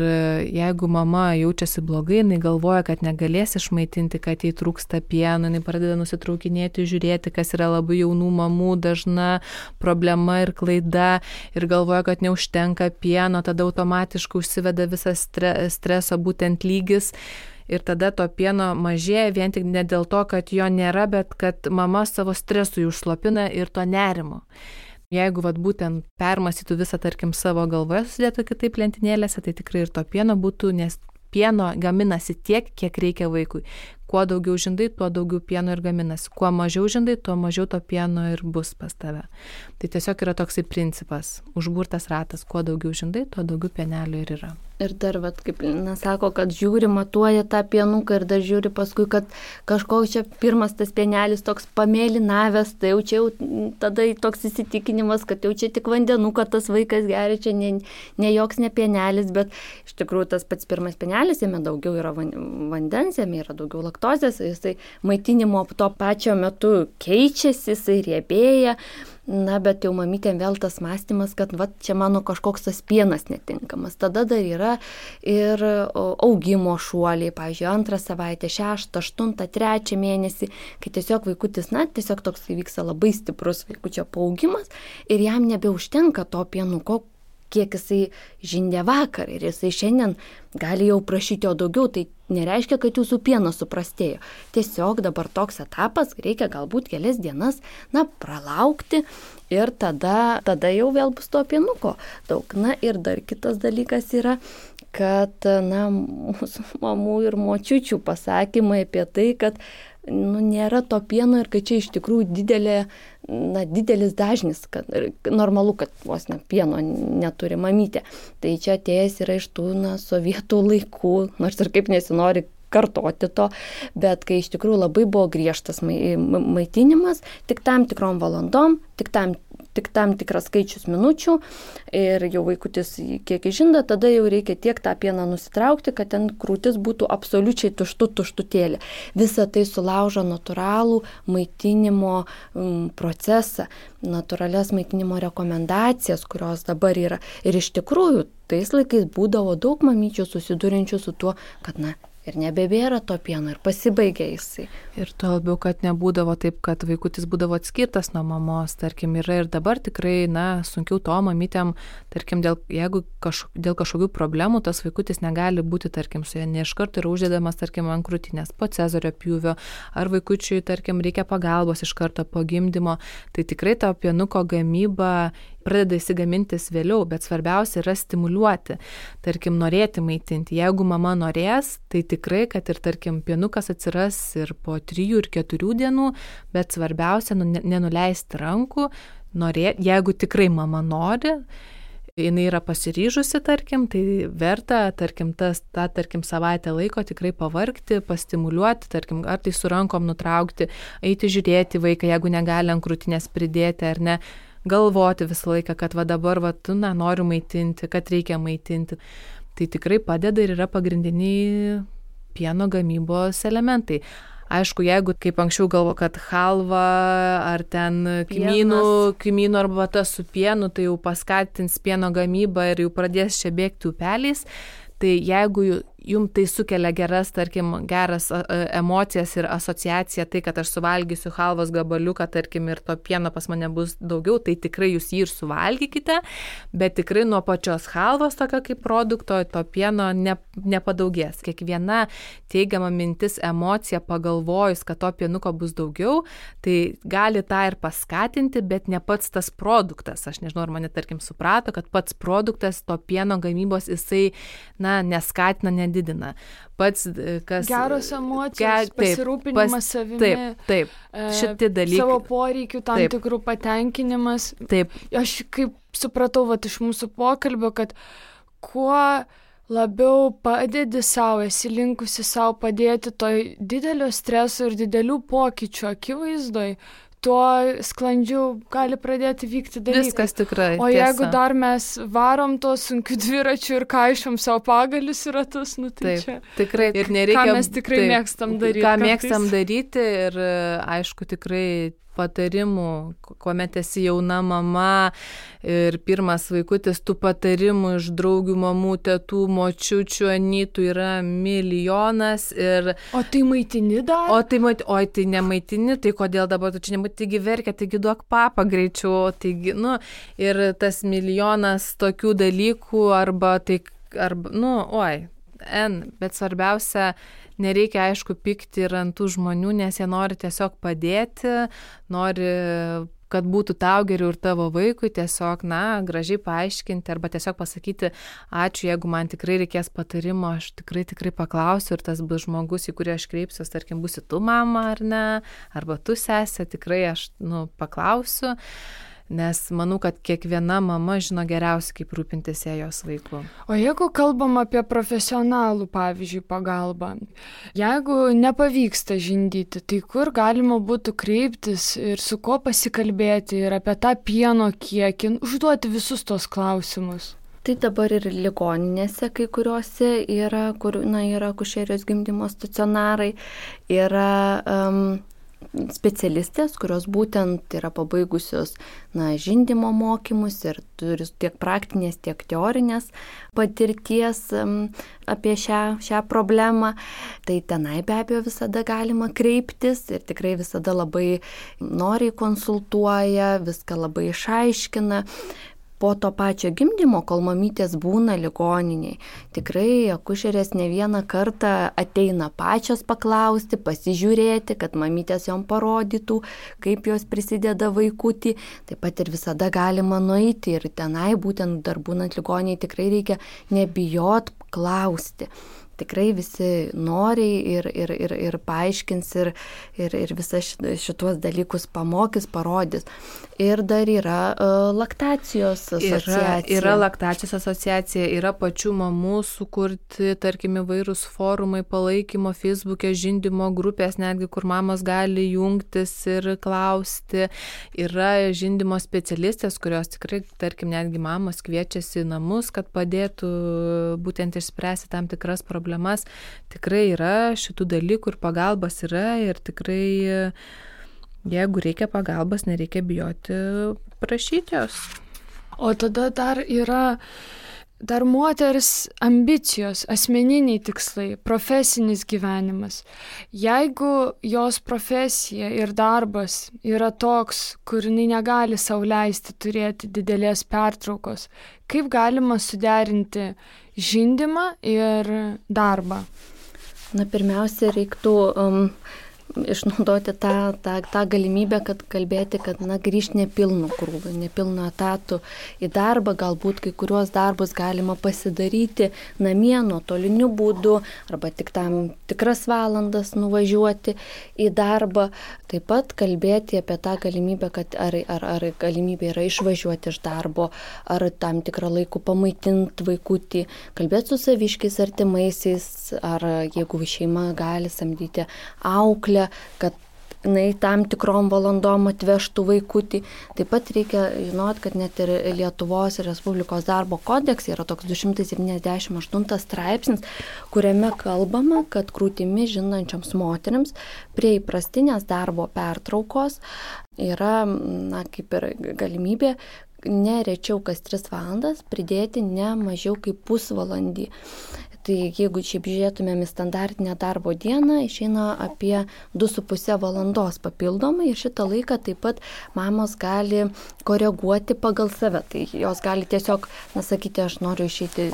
jeigu mama jaučiasi blogai, jinai galvoja, kad negalės išmaitinti, kad jai trūksta pieno, jinai pradeda nusitraukinėti, žiūrėti, kas yra labai jaunų mamų dažna problema ir klaida, ir galvoja, kad neužtenka pieno, tada automatiškai užsiveda visas streso būtent lygis. Ir tada to pieno mažėja vien tik ne dėl to, kad jo nėra, bet kad mama savo stresui užslopina ir to nerimo. Jeigu būtent permąstytų visą, tarkim, savo galvoje susidėtų kitaip lentynėlėse, tai tikrai ir to pieno būtų, nes pieno gaminasi tiek, kiek reikia vaikui. Kuo daugiau žindai, tuo daugiau pieno ir gaminasi. Kuo mažiau žindai, tuo mažiau to pieno ir bus pas tave. Tai tiesiog yra toksai principas, užburtas ratas, kuo daugiau žindai, tuo daugiau pienelio ir yra. Ir dar, kaip sako, kad žiūri, matuoja tą pienuką ir dar žiūri paskui, kad kažkoks čia pirmas tas pienelis toks pamėlinavęs, tai jau čia tada toks įsitikinimas, kad jau čia tik vandenuką tas vaikas geria, čia ne joks ne pienelis, bet iš tikrųjų tas pats pirmas pienelis, jame daugiau yra vandens, jame yra daugiau laktozės, jisai maitinimo tuo pačiu metu keičiasi, jisai riebėja. Bet jau mamytėm vėl tas mąstymas, kad čia mano kažkoks tas pienas netinkamas. Tada dar yra ir augimo šuoliai, pavyzdžiui, 2 savaitę, 6, 8, 3 mėnesį, kai tiesiog vaikutis, tiesiog toks įvyksta labai stiprus vaikučio paaugimas ir jam nebeužtenka to pienuko, kiek jisai žindė vakar ir jisai šiandien gali jau prašyti jo daugiau, tai nereiškia, kad jūsų pienas suprastėjo. Tiesiog dabar toks etapas, reikia galbūt kelias dienas, pralaukti Ir tada jau vėl bus to pienuko daug. Na ir dar kitas dalykas yra, kad mūsų mamų ir močiučių pasakymai apie tai, kad nėra to pieno ir kad čia iš tikrųjų didelis dažnis, kad normalu, kad vos pieno neturi mamytė. Tai čia atėjęs yra iš tų sovietų laikų, nors ir kaip nesinori kartoti to, bet kai iš tikrųjų labai buvo griežtas maitinimas, tik tam tikrom valandom, tik tam tikras skaičius minučių ir jau vaikutis kiek žinda, tada jau reikia tiek tą pieną nusitraukti, kad ten krūtis būtų absoliučiai tuštutėlė. Visa tai sulaužo natūralų maitinimo procesą, natūralias maitinimo rekomendacijas, kurios dabar yra. Ir iš tikrųjų, tais laikais būdavo daug mamyčių susidurinčių su tuo, kad ir nebebėra to pieno ir pasibaigė jisai. Ir to labiau, kad nebūdavo taip, kad vaikutis būdavo atskirtas nuo mamos, tarkim, yra ir dabar tikrai, sunkiau to mamytėm, tarkim, jeigu dėl kažkokių problemų tas vaikutis negali būti, tarkim, su ja ne iš karto yra uždedamas, tarkim, ant krūtinės po cezario pjūvio, ar vaikučiui, tarkim, reikia pagalbos iš karto po gimdymo, tai tikrai to pienuko gamyba pradeda įsigamintis vėliau, bet svarbiausia yra stimuliuoti, tarkim, norėti maitinti. Jeigu mama norės, tai tikrai, kad ir, tarkim, pienukas atsiras ir po 3 ir 4 dienų, bet svarbiausia nenuleisti rankų, jeigu tikrai mama nori, jinai yra pasiryžusi, tarkim, tai verta, tarkim, tarkim, savaitę laiko tikrai pavargti, pastimuliuoti, tarkim, ar tai su rankom nutraukti, eiti žiūrėti vaiką, jeigu negali ant krūtinės pridėti ar ne, galvoti visą laiką, kad dabar noriu maitinti, kad reikia maitinti. Tai tikrai padeda ir yra pagrindiniai pieno gamybos elementai. Aišku, jeigu kaip anksčiau galvo, kad halva ar ten kmynų arbata su pienu, tai jau paskatins pieno gamybą ir jau pradės čia bėgti upeliais. Tai jeigu jums tai sukelia geras emocijas ir asociaciją, tai kad aš suvalgysiu halvos gabaliuką, tarkim, ir to pieno pas mane bus daugiau, tai tikrai jūs jį ir suvalgykite, bet tikrai nuo pačios halvos tokio kaip produkto to pieno nepadaugės. Kiekviena teigiama mintis, emocija pagalvojus, kad to pienuko bus daugiau, tai gali tą ir paskatinti, bet ne pats tas produktas. Aš nežinau, ar mane, tarkim, suprato, kad pats produktas to pieno gamybos jisai, neskatina, nedidina. Pats, kas... Geros emocijos, pasirūpinimas savimi. Taip, šitie dalykai. Savo poreikių tam tikrų patenkinimas. Taip. Aš kaip supratau iš mūsų pokalbio, kad kuo labiau padedi savo, esi linkusi savo padėti toj didelio streso ir didelių pokyčių akivaizdoj, tuo sklandžiau gali pradėti vykti dalykai. Viskas tikrai. O jeigu dar mes varom to sunkiu dviračiu ir kaišom savo pagalius į ratus, tai čia. Tikrai. Ir nereikia. Ką mes tikrai mėgstam daryti. Ką mėgstam daryti ir aišku tikrai patarimų, kuomet esi jauna mama ir pirmas vaikutis, tų patarimų iš draugių, mamų, tetų, močiučių, anytų yra milijonas. O tai maitini dar? Tai nemaitini, tai kodėl dabar tu čia nemaitini, taigi verkia, taigi duok papą greičiau, taigi, ir tas milijonas tokių dalykų bet svarbiausia, nereikia, aišku, pykti ir ant tų žmonių, nes jie nori tiesiog padėti, nori, kad būtų tau geriau ir tavo vaikui, tiesiog, gražiai paaiškinti arba tiesiog pasakyti, ačiū, jeigu man tikrai reikės patarimo, aš tikrai paklausiu ir tas bus žmogus, į kurį aš kreipsiuos, tarkim, būsi tu mama ar ne, arba tu sesė, tikrai aš, paklausiu. Nes manau, kad kiekviena mama žino geriausiai, kaip rūpintis jos vaiku. O jeigu kalbam apie profesionalų, pavyzdžiui, pagalbą, jeigu nepavyksta žindyti, tai kur galima būtų kreiptis ir su kuo pasikalbėti ir apie tą pieno kiekį, užduoti visus tos klausimus? Tai dabar ir ligoninėse kai kuriuose yra, kur yra akušerijos gimdymo stacionarai, yra specialistės, kurios būtent yra pabaigusios žindymo mokymus ir turi tiek praktinės, tiek teorinės patirties apie šią problemą. Tai tenai be abejo visada galima kreiptis ir tikrai visada labai noriai konsultuoja, viską labai išaiškina. po to pačio gimdymo, kol mamytės būna ligoniniai. Tikrai akušerės ne vieną kartą ateina pačios paklausti, pasižiūrėti, kad mamytės jom parodytų, kaip jos prisideda vaikutį. Taip pat ir visada galima nueiti ir tenai, būtent dar būnant ligoniniai, tikrai reikia nebijot klausti. Tikrai visi noriai ir paaiškins ir visas šituos dalykus pamokys, parodys. Ir dar yra laktacijos asociacija. Yra laktacijos asociacija, yra pačių mamų sukurti, tarkim, įvairūs forumai palaikymo, Facebook'e žindymo grupės, netgi kur mamos gali jungtis ir klausti. Yra žindymo specialistės, kurios tikrai, tarkim, netgi mamos kviečiasi į namus, kad padėtų būtent išspręsti tam tikras problemas. Tikrai yra šitų dalykų ir pagalbas yra ir tikrai, jeigu reikia pagalbos, nereikia bijoti prašyti jos. O tada dar yra moters ambicijos, asmeniniai tikslai, profesinis gyvenimas. Jeigu jos profesija ir darbas yra toks, kur jinai negali sau leisti turėti didelės pertraukos, kaip galima suderinti žindymą ir darbą? Na, pirmiausia, reiktų išnaudoti tą galimybę, kad kalbėti, kad grįžti nepilnu krūviu, nepilnu etatu į darbą, galbūt kai kuriuos darbus galima pasidaryti namie nuotoliniu būdu arba tik tam tikras valandas nuvažiuoti į darbą. Taip pat kalbėti apie tą galimybę, kad ar galimybė yra išvažiuoti iš darbo, ar tam tikrą laiką pamaitinti vaikutį, kalbėti su saviškiais artimaisiais, ar jeigu šeima gali samdyti auklę, kad tam tikrom valandom atvežtų vaikutį. Taip pat reikia žinoti, kad net ir Lietuvos Respublikos darbo kodekse yra toks 278 straipsnis, kuriame kalbama, kad krūtimi žindančioms moterims prie įprastinės darbo pertraukos yra, kaip ir galimybė ne rečiau kas 3 valandas pridėti ne mažiau kaip pusvalandį. Tai jeigu šiaip žiūrėtumėm į standartinę darbo dieną, išeina apie 2,5 valandos papildomai ir šitą laiką taip pat mamos gali koreguoti pagal save. Tai jos gali tiesiog, sakyti, aš noriu išeiti,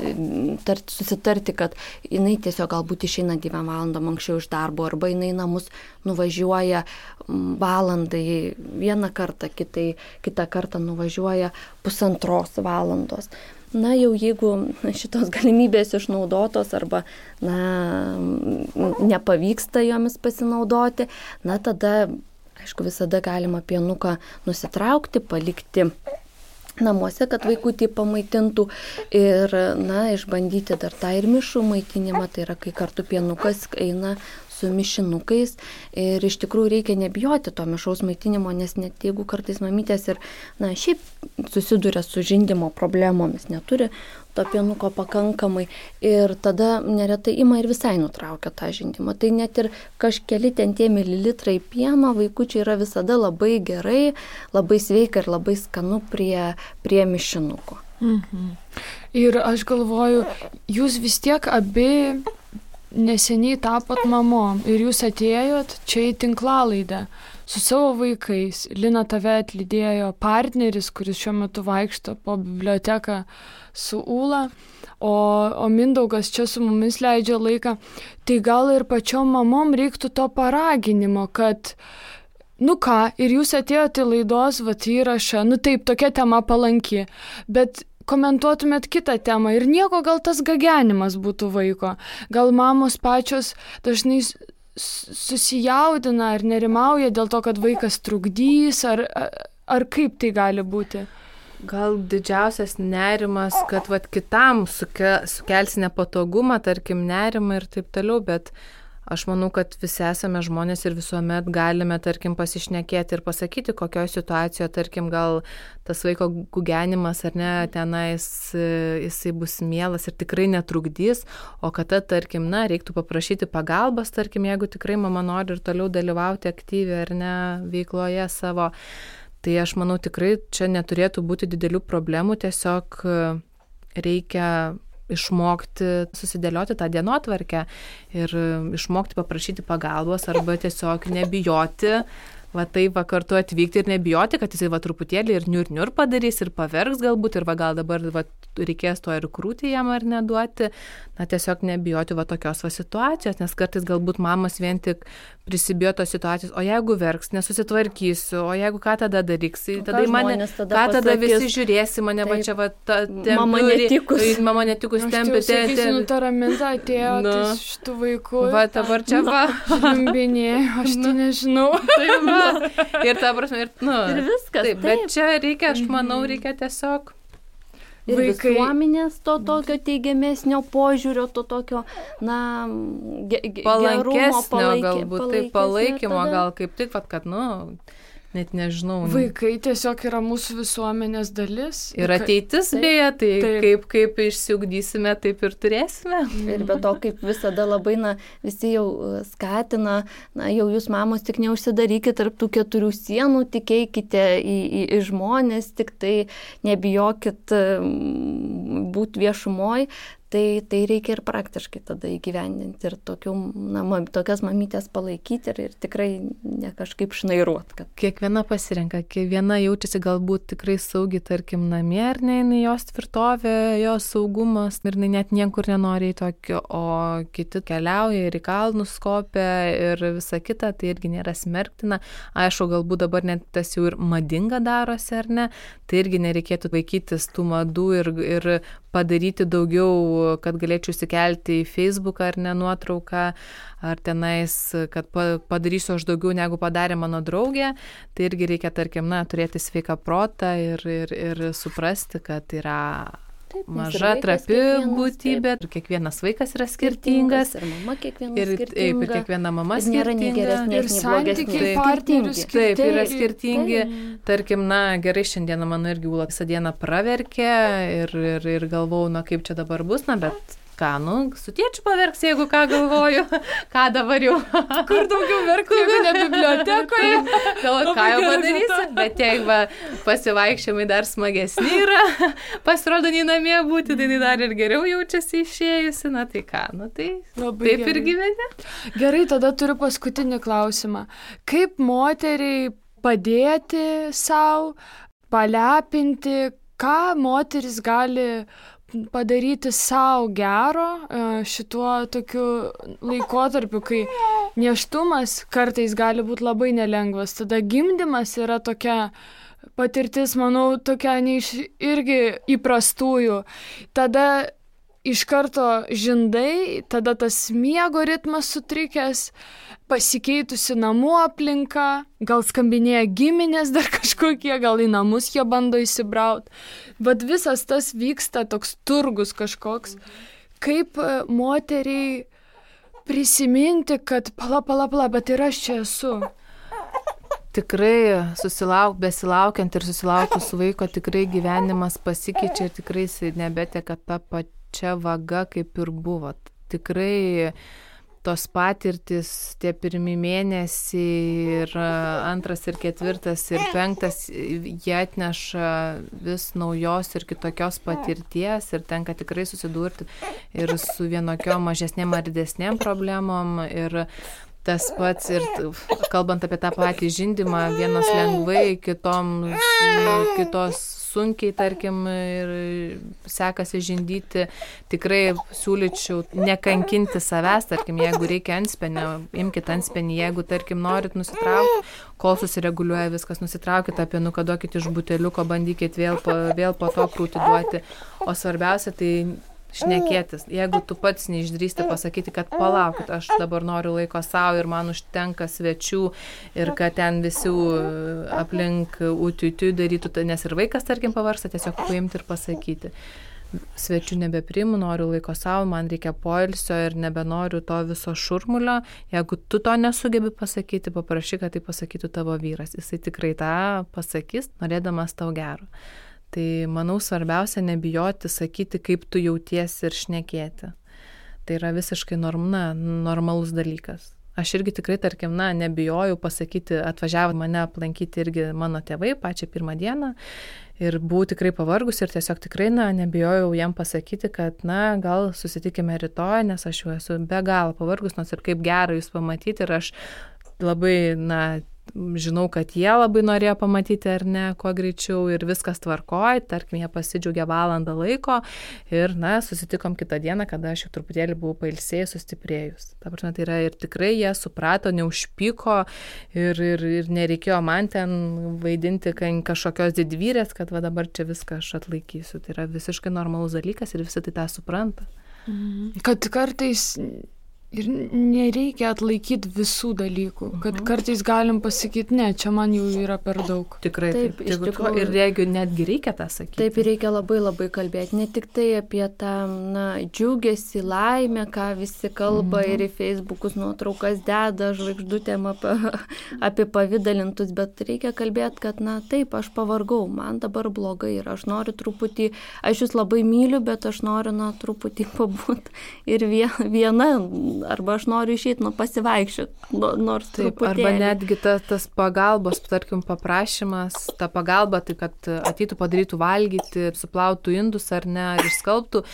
susitarti, kad jinai tiesiog galbūt išeina 2 valandom anksčiau iš darbo, arba jinai namus nuvažiuoja valandai vieną kartą, kitą kartą nuvažiuoja 1,5 valandos. Na, jau jeigu šitos galimybės išnaudotos arba, nepavyksta jomis pasinaudoti, tada, aišku, visada galima pienuką nusitraukti, palikti namuose, kad vaikutį pamaitintų ir, išbandyti dar tą ir mišrų maitinimą, tai yra, kai kartu pienukas eina su mišinukais ir iš tikrųjų reikia nebijoti to mišraus maitinimo, nes net jeigu kartais mamytės ir, šiaip susiduria su žindymo problemomis, neturi to pienuko pakankamai ir tada neretai ima ir visai nutraukia tą žindymą. Tai net ir kažkeli ten tie mililitrai pieno vaikučiai yra visada labai gerai, labai sveika ir labai skanu prie mišinuko. Mhm. Ir aš galvoju, jūs vis tiek abi neseniai tapot mamom ir jūs atėjot čia į tinklalaidę su savo vaikais. Lina, tave atlydėjo partneris, kuris šiuo metu vaikšto po biblioteką su Ūla, o Mindaugas čia su mumis leidžia laiką. Tai gal ir pačiom mamom reiktų to paraginimo, kad ir jūs atėjote į laidos įrašą, taip, tokia tema palanki, bet komentuotumėt kitą temą ir nieko, gal tas gagenimas būtų vaiko. Gal mamos pačios dažnai susijaudina ar nerimauja dėl to, kad vaikas trukdys, ar kaip tai gali būti? Gal didžiausias nerimas, kad kitam sukelsi nepatogumą, tarkim, nerimą ir taip toliau, bet aš manau, kad visi esame žmonės ir visuomet galime, tarkim, pasišnekėti ir pasakyti, kokioje situacijoje, tarkim, gal tas vaiko gugenimas ar ne, tenais jisai bus mielas ir tikrai netrukdys, o kad tarkim, reiktų paprašyti pagalbos, tarkim, jeigu tikrai mama nori ir toliau dalyvauti aktyviai ar ne veikloje savo. Tai aš manau, tikrai čia neturėtų būti didelių problemų, tiesiog reikia išmokti susidėlioti tą dienotvarkę ir išmokti paprašyti pagalbos arba tiesiog nebijoti va taip va kartu atvykti ir nebijoti, kad jisai va truputėlį ir niur padarys ir paverks galbūt ir va gal dabar va reikės to ir krūtį jam ar neduoti, na tiesiog nebijoti va tokios va situacijos, nes kartais galbūt mamos vien tik prisibijo tos situacijos, o jeigu verks, nesusitvarkysiu, o jeigu ką tada daryks, tada mane, ką tada visi žiūrėsi, mane va čia va mama netikus tempė. Aš sakysiu, ta raminta atėjo šitų vaikų. Va, dabar čia va. Žliumbinėjau, aš tai nežinau. Ir ta prasme, ir viskas. Taip, bet čia reikia, aš manau, reikia tiesiog ir visuomenės to tokio teigiamesnio požiūrio, to tokio, na, palankesnio galbūt, tai palaikymo gal kaip tik, kad, net nežinau. Vaikai tiesiog yra mūsų visuomenės dalis. Ir ateitis beje, tai kaip išsiugdysime, taip ir turėsime. Ir be to, kaip visada labai, visi jau skatina, jau jūs mamos tik neužsidarykite tarp tų 4 sienų, tikėkite į žmonės, tik tai nebijokit būti viešumoj. Tai reikia ir praktiškai tada įgyvendinti ir tokias mamytės palaikyti ir tikrai ne kažkaip šnairuot. Kiekviena pasirenka, kiekviena jaučiasi galbūt tikrai saugiai, tarkim, namie, ar ne, jos tvirtovė, jos saugumas ir net niekur nenori į tokio, o kiti keliauja ir į kalnus kopia ir visa kita, tai irgi nėra smerktina. Aišku, galbūt dabar net tas jau ir madinga darosi, ar ne, tai irgi nereikėtų vaikytis tų madų ir padaryti daugiau, kad galėčiau įsikelti į Facebooką ar ne nuotrauką, ar tenais, kad padarysiu aš daugiau negu padarė mano draugė, tai irgi reikia, tarkim, turėti sveiką protą ir suprasti, kad yra maža, trapi būtybė, ir kiekvienas vaikas yra skirtingas, ir mama kiekviena skirtinga, ir kiekviena mama skirtinga, nėra nei geresnės, ir santykiai partnerių skirtingi. Taip, yra skirtingi. Tarkim, gerai, šiandieną mano irgi Ūla visą dieną praverkė ir galvau, kaip čia dabar bus, bet ką, su tėčiu paverks, jeigu ką galvoju, ką dabar jau. Kur daugiau verkti, jeigu ne bibliotekoje. Galvoju, ką jau padarysi, bet jeigu pasivaikščiojimai dar smagesni yra, pasirodo, nei namie būti, tai dar ir geriau jaučiasi išėjusi, tai ką, tai labai taip gerai. Ir gyveni. Gerai, tada turiu paskutinį klausimą. Kaip moteriai padėti savo, palepinti, ką moteris gali padaryti savo gero šituo tokiu laikotarpiu, kai nėštumas kartais gali būti labai nelengvas. Tada gimdymas yra tokia patirtis, manau, tokia irgi įprastųjų. Tada iš karto žindai, tada tas miego ritmas sutrikęs, pasikeitusi namų aplinka, gal skambinėja giminės dar kažkokie, gal į namus jie bando įsibraut. Bet visas tas vyksta, toks turgus kažkoks. Kaip moteriai prisiminti, kad pala, bet ir aš čia esu. Tikrai besilaukiant ir susilaukus vaiko, tikrai gyvenimas pasikeičia ir tikrai jis nebeteka tą pačią vagą, kaip ir buvo. Tikrai tos patirtis, tie pirmi mėnesiai ir 2 ir 4 ir 5, jie atneša vis naujos ir kitokios patirties ir tenka tikrai susidurti ir su vienokiom mažesnėm ar didesnėm problemom ir tas pats ir kalbant apie tą patį žindymą, vienos lengvai, kitos sunkiai, tarkim, ir sekasi žindyti, tikrai siūlyčiau nekankinti savęs, tarkim, jeigu reikia antspenio, imkite antspenį, jeigu, tarkim, norit nusitraukti, kol susireguliuoja viskas, nusitraukite apie nukaduokite iš buteliuko, bandykite vėl po to krūtį duoti, o svarbiausia tai šnekėtis. Jeigu tu pats neišdrįsti pasakyti, kad palaukit, aš dabar noriu laiko savo ir man užtenka svečių ir kad ten visi aplink utiutiu darytų, nes ir vaikas, tarkim, pavarsta, tiesiog paimti ir pasakyti. Svečių nebepriimu, noriu laiko savo, man reikia poilsio ir nebenoriu to viso šurmulio. Jeigu tu to nesugebi pasakyti, paprašyk, kad tai pasakytų tavo vyras. Jisai tikrai tą pasakys, norėdamas tau gero. Tai, manau, svarbiausia nebijoti sakyti, kaip tu jautiesi ir šnekėti. Tai yra visiškai normalus dalykas. Aš irgi tikrai, tarkim, nebijojau pasakyti, atvažiavo mane aplankyti irgi mano tėvai pačią pirmą dieną ir buvau tikrai pavargus ir tiesiog tikrai, nebijojau jam pasakyti, kad, gal susitikime rytoj, nes aš jau esu be galo pavargus, nors ir kaip gera jūs pamatyti ir aš labai, žinau, kad jie labai norėjo pamatyti ar ne, kuo greičiau ir viskas tvarkoj, tarkim, jie pasidžiaugė valandą laiko ir, susitikom kitą dieną, kada aš jau truputėlį buvau pailsėjus, sustiprėjus. Ta prasme, tai yra ir tikrai jie suprato, neužpyko ir nereikėjo man ten vaidinti kažkokios didvyrės, kad va dabar čia viską aš atlaikysiu. Tai yra visiškai normalus dalykas ir visi tai tą supranta. Kad kartais ir nereikia atlaikyti visų dalykų, kad kartais galim pasakyti, ne, čia man jau yra per daug. Tikrai taip. Ir jeigu netgi reikia tą sakyti. Taip, ir reikia labai labai kalbėti. Ne tik tai apie tą džiugesį, laimę, ką visi kalba ir į Facebookus nuotraukas deda, žvaigždutėm apie pavidalintus, bet reikia kalbėti, kad, taip, aš pavargau, man dabar blogai ir aš noriu truputį, aš jūs labai myliu, bet aš noriu, truputį pabūti ir viena, arba aš noriu išeiti, pasivaikščioti, nors taip, truputėlį. Arba netgi tas pagalbos, tarkim, paprašymas, ta pagalba, tai kad ateitų padarytų valgyti, suplautų indus ar ne, ar išskalbtų,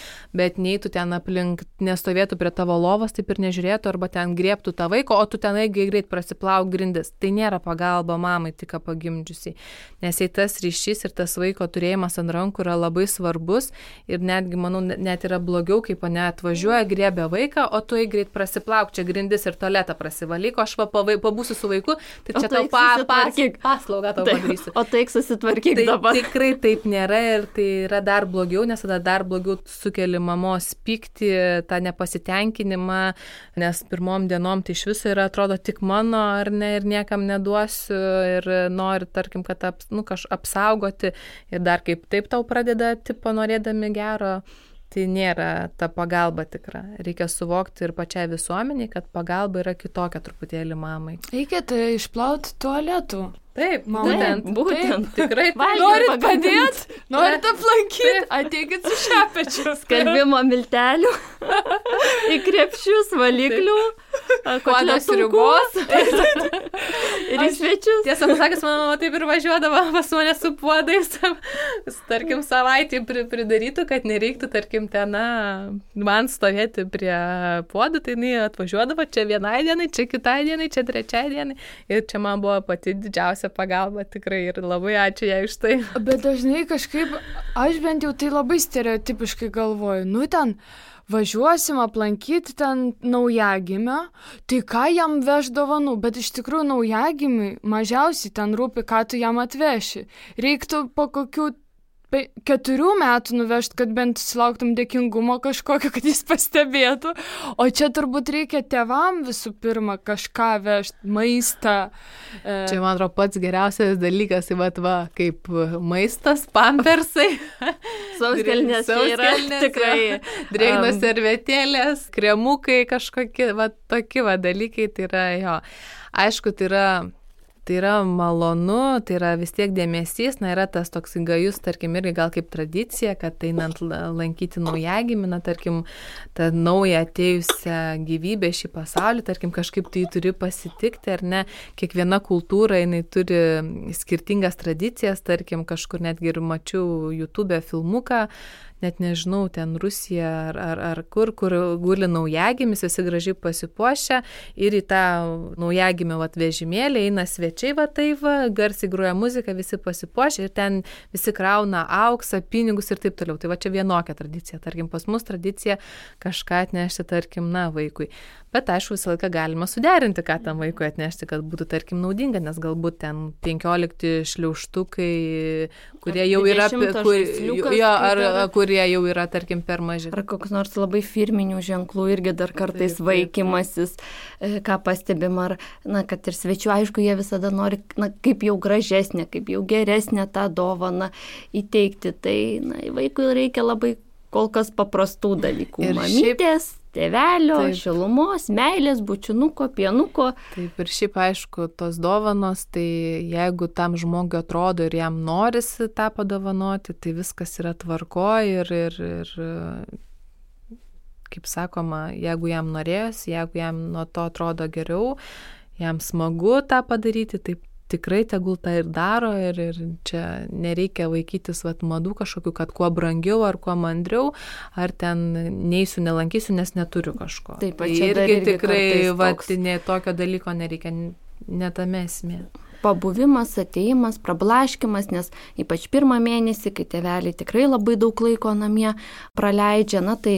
bet neįtų ten aplink, nestovėtų prie tavo lovos, taip ir nežiūrėtų, arba ten griebtų tą vaiką, o tu ten greit prasiplauk grindis. Tai nėra pagalba mamai, tik pagimdžiusiai. Nes jei tas ryšys ir tas vaiko turėjimas ant rankų yra labai svarbus ir netgi, manau, net yra blogiau, kaip atvažiuoja, griebia vaiką, o tu greit prasiplauk čia grindis ir tualetą prasivalyk, o aš pabūsiu su vaiku, tai čia tau paslaugą tau padarysiu. O taik susitvarkyk dabar. Tikrai taip nėra ir tai yra dar blogiau, nes tada dar blogiau sukeli mamos pyktį, tą nepasitenkinimą, nes pirmom dienom tai iš viso yra, atrodo, tik mano ar ne ir niekam neduosiu ir nori, tarkim, kad apsaugoti ir dar kaip taip tau pradeda norėdami gero. Tai nėra ta pagalba tikra. Reikia suvokti ir pačiai visuomeniai, kad pagalba yra kitokia truputėlį mamai. Reikia tai išplauti tualetų. Taip, būtent. Tikrai. Norit padėti, norit aplankyti, ateikit su šepečiu. Skalbimo miltelių, į krepšius, valiklių, kodos ribos. Ir į svečius. Tiesą pasakęs, mano mama taip ir važiuodavo pas mane su puodais, tarkim, savaitį pridarytų, kad nereiktų, tarkim, ten man stovėti prie puodų, tai jinai atvažiuodavo čia vienai dienai, čia kitai dienai, čia trečiai dienai. Ir čia man buvo pati didžiausia pagalba tikrai ir labai ačiū jai už tai. Bet dažnai kažkaip, aš bent jau tai labai stereotipiškai galvoju, ten važiuosim aplankyti ten naujagimę, tai ką jam veš dovanų, bet iš tikrųjų naujagimiui mažiausiai ten rūpi, ką tu jam atveši. Reiktų po kokių 4 metų nuvežti, kad bent sulauktum dėkingumo kažkokio, kad jis pastebėtų. O čia turbūt reikia tėvam visų pirma kažką vežti, maistą. Čia, man atrodo, pats geriausias dalykas, kaip maistas, pampersai. Sauskelnės yra tikrai. Drėgnos servetėlės, kremukai kažkokie, tokie dalykai, tai yra jo. Aišku, tai yra malonu, tai yra vis tiek dėmesys, yra tas toks gajus, tarkim, irgi gal kaip tradicija, kad einant lankyti naujagimį, tarkim, tą naują atėjusią gyvybę šį pasaulį, tarkim, kažkaip tai turi pasitikti, ar ne, kiekviena kultūra, jinai turi skirtingas tradicijas, tarkim, kažkur netgi ir mačiau YouTube filmuką, net nežinau, ten Rusija ar kur guli naujagimis, visi gražiai pasipuošę ir į tą naujagimio vežimėlį eina svečiai, garsiai groja muzika, visi pasipuošę ir ten visi krauna auksą, pinigus ir taip toliau. Tai čia vienokia tradicija. Tarkim, pas mus tradicija kažką atnešti, tarkim, vaikui. Bet aišku, visą laiką galima suderinti, ką tam vaikui atnešti, kad būtų, tarkim, naudinga, nes galbūt ten 15 šliaužtukai, kurie jau yra, kurie jau yra, tarkim, per maži. Ar koks nors labai firminių ženklų irgi dar kartais vaikymasis, ką pastebim, ar, kad ir svečių, aišku, jie visada nori, kaip jau gražesnė, kaip jau geresnė tą dovaną įteikti. Tai, vaikui reikia labai kol kas paprastų dalykų. Ir mamytės, tėvelio, šilumos, meilės, bučinuko, pienuko. Taip, ir šiaip aišku, tos dovanos, tai jeigu tam žmogui atrodo ir jam norisi tą padovanoti, tai viskas yra tvarkoj ir kaip sakoma, jeigu jam norėjosi, jeigu jam nuo to atrodo geriau, jam smagu tą padaryti, taip tikrai tegul tą ir daro ir čia nereikia vaikytis madų kažkokių, kad kuo brangiau ar kuo mandriau, ar ten neįsiu, nelankysiu, nes neturiu kažko. Taip, tai irgi tikrai tokio dalyko nereikia. netame esmė. Pabuvimas, atėjimas, prablaškimas, nes ypač pirmą mėnesį, kai tėveliai tikrai labai daug laiko namie praleidžia, tai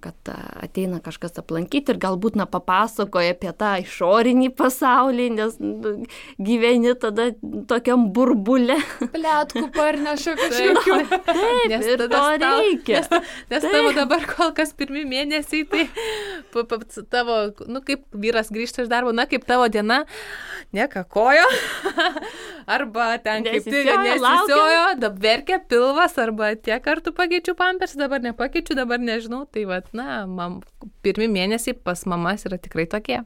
kad ateina kažkas aplankyti ir galbūt papasakoja apie tą išorinį pasaulį, nes gyveni tada tokiam burbule. Pletkų parneša kažkokiu. Taip, nes ir to reikia. Nes tavo dabar kol kas pirmi mėnesiai, tai tavo, kaip vyras grįžta iš darbo, kaip tavo diena, nekakojo. Arba ten kaip tai nesisiojo, dabar verkia pilvas, arba tiek kartų pakeičiu pampers, dabar nepakeičiu, dabar nežinau. Tai pirmi mėnesiai pas mamas yra tikrai tokie.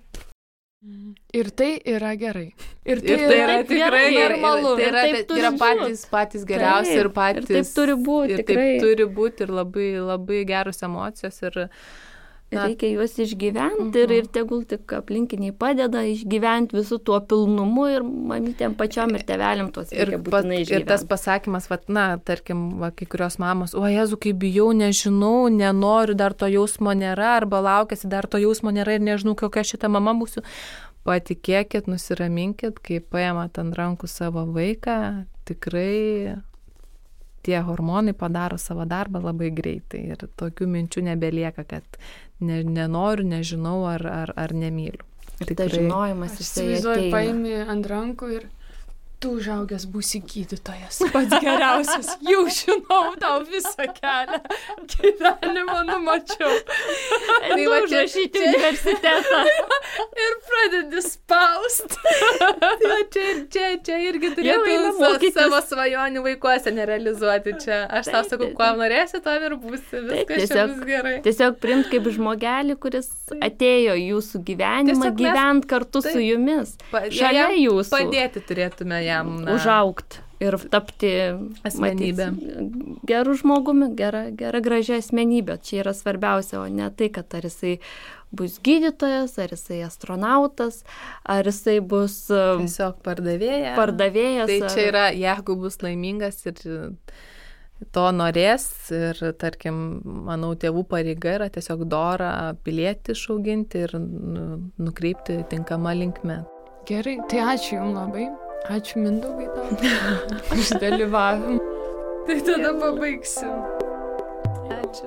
Ir tai yra gerai. Ir tai yra tikrai normalu. Tai yra patys geriausi ir patys. Ir taip turi būti. Ir taip turi būti ir labai, labai geros emocijos. Reikia juos išgyventi ir tegul tik aplinkiniai padeda išgyventi visų tuo pilnumu ir mamytėm pačiom ir tėveliam tuos reikia būtinai išgyventi. Ir tas pasakymas, tarkim, kai kurios mamos, o Jezu, kaip bijau, nežinau, nenoriu, dar to jausmo nėra, arba laukiasi, dar to jausmo nėra ir nežinau, kokia šita mama būsiu. Patikėkit, nusiraminkit, kai paimat ant rankų savo vaiką, tikrai tie hormonai padaro savo darbą labai greitai ir tokių minčių nebelieka, kad nenoriu, nežinau ar nemyliu. Ir tai žinojimas jisai ateina. Paimi ant rankų ir tu užaugęs būsi gydytojas, pats geriausias, jau žinau tau visą kelią, gyvenimą numačiau. Tai užrašyti universitetą. Ir pradedi spaust. Čia irgi turėtų savo svajonių vaikuose nerealizuoti čia. Aš tau sakau, kuo norėsi, to ir būsi. Viskas čia bus gerai. Tiesiog priimt kaip žmogelį, kuris atėjo jūsų gyvenimą, gyvent kartu su jumis. Šalia jūsų. Padėti turėtume jam užaugti ir tapti asmenybę. Gerų žmogumi, gera gražia asmenybė. Čia yra svarbiausia, o ne tai, kad ar jisai bus gydytojas, ar jisai astronautas, ar jisai bus tiesiog pardavėjas. Tai čia yra, jeigu bus laimingas ir to norės ir, tarkim, manau, tėvų pareiga yra tiesiog dorą pilietį išauginti ir nukreipti tinkamą linkmę. Gerai, tai ačiū Jums labai. Ačiū Mindaugai tau už dalyvavimą. Tai tada pabaigsim. Ačiū.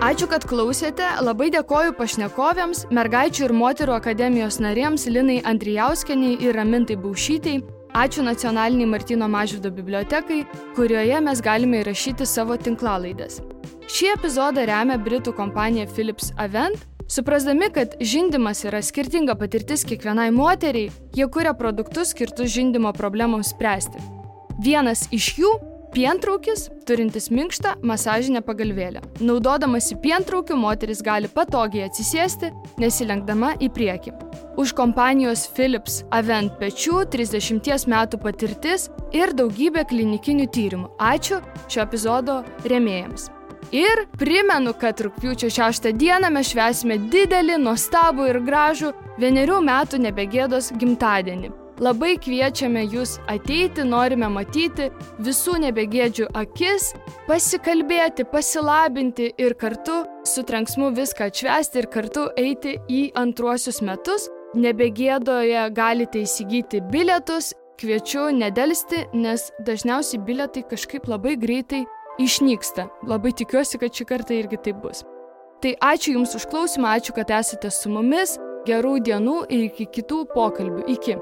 Ačiū, kad klausėte. Labai dėkoju pašnekovėms, Mergaičių ir moterų akademijos narėms Linai Andrijauskienei ir Ramintai Baušytei. Ačiū Nacionaliniai Martyno Mažvydo bibliotekai, kurioje mes galime įrašyti savo tinklalaides. Šį epizodą remia britų kompanija Philips Avent. Suprasdami, kad žindymas yra skirtinga patirtis kiekvienai moteriai, jie kuria produktus skirtus žindymo problemoms spręsti. Vienas iš jų – pientraukis, turintis minkštą masažinę pagalvėlę. Naudodamasi pientraukiu, moteris gali patogiai atsisėsti, nesilenkdama į priekį. Už kompanijos Philips Avent pečių 30 metų patirtis ir daugybė klinikinių tyrimų. Ačiū šio epizodo rėmėjams. Ir primenu, kad rugpjūčio 6 dieną mes švęsime didelį, nuostabų ir gražų 1 metų nebegėdos gimtadienį. Labai kviečiame jūs ateiti, norime matyti visų nebegėdžių akis, pasikalbėti, pasilabinti ir kartu su trenksmu viską atšvęsti ir kartu eiti į antruosius metus. Nebegėdoje galite įsigyti bilietus, kviečiu nedelsti, nes dažniausiai bilietai kažkaip labai greitai išnyksta. Labai tikiuosi, kad šį kartą irgi taip bus. Tai ačiū Jums už klausimą, ačiū, kad esate su mumis, gerų dienų ir iki kitų pokalbių. Iki.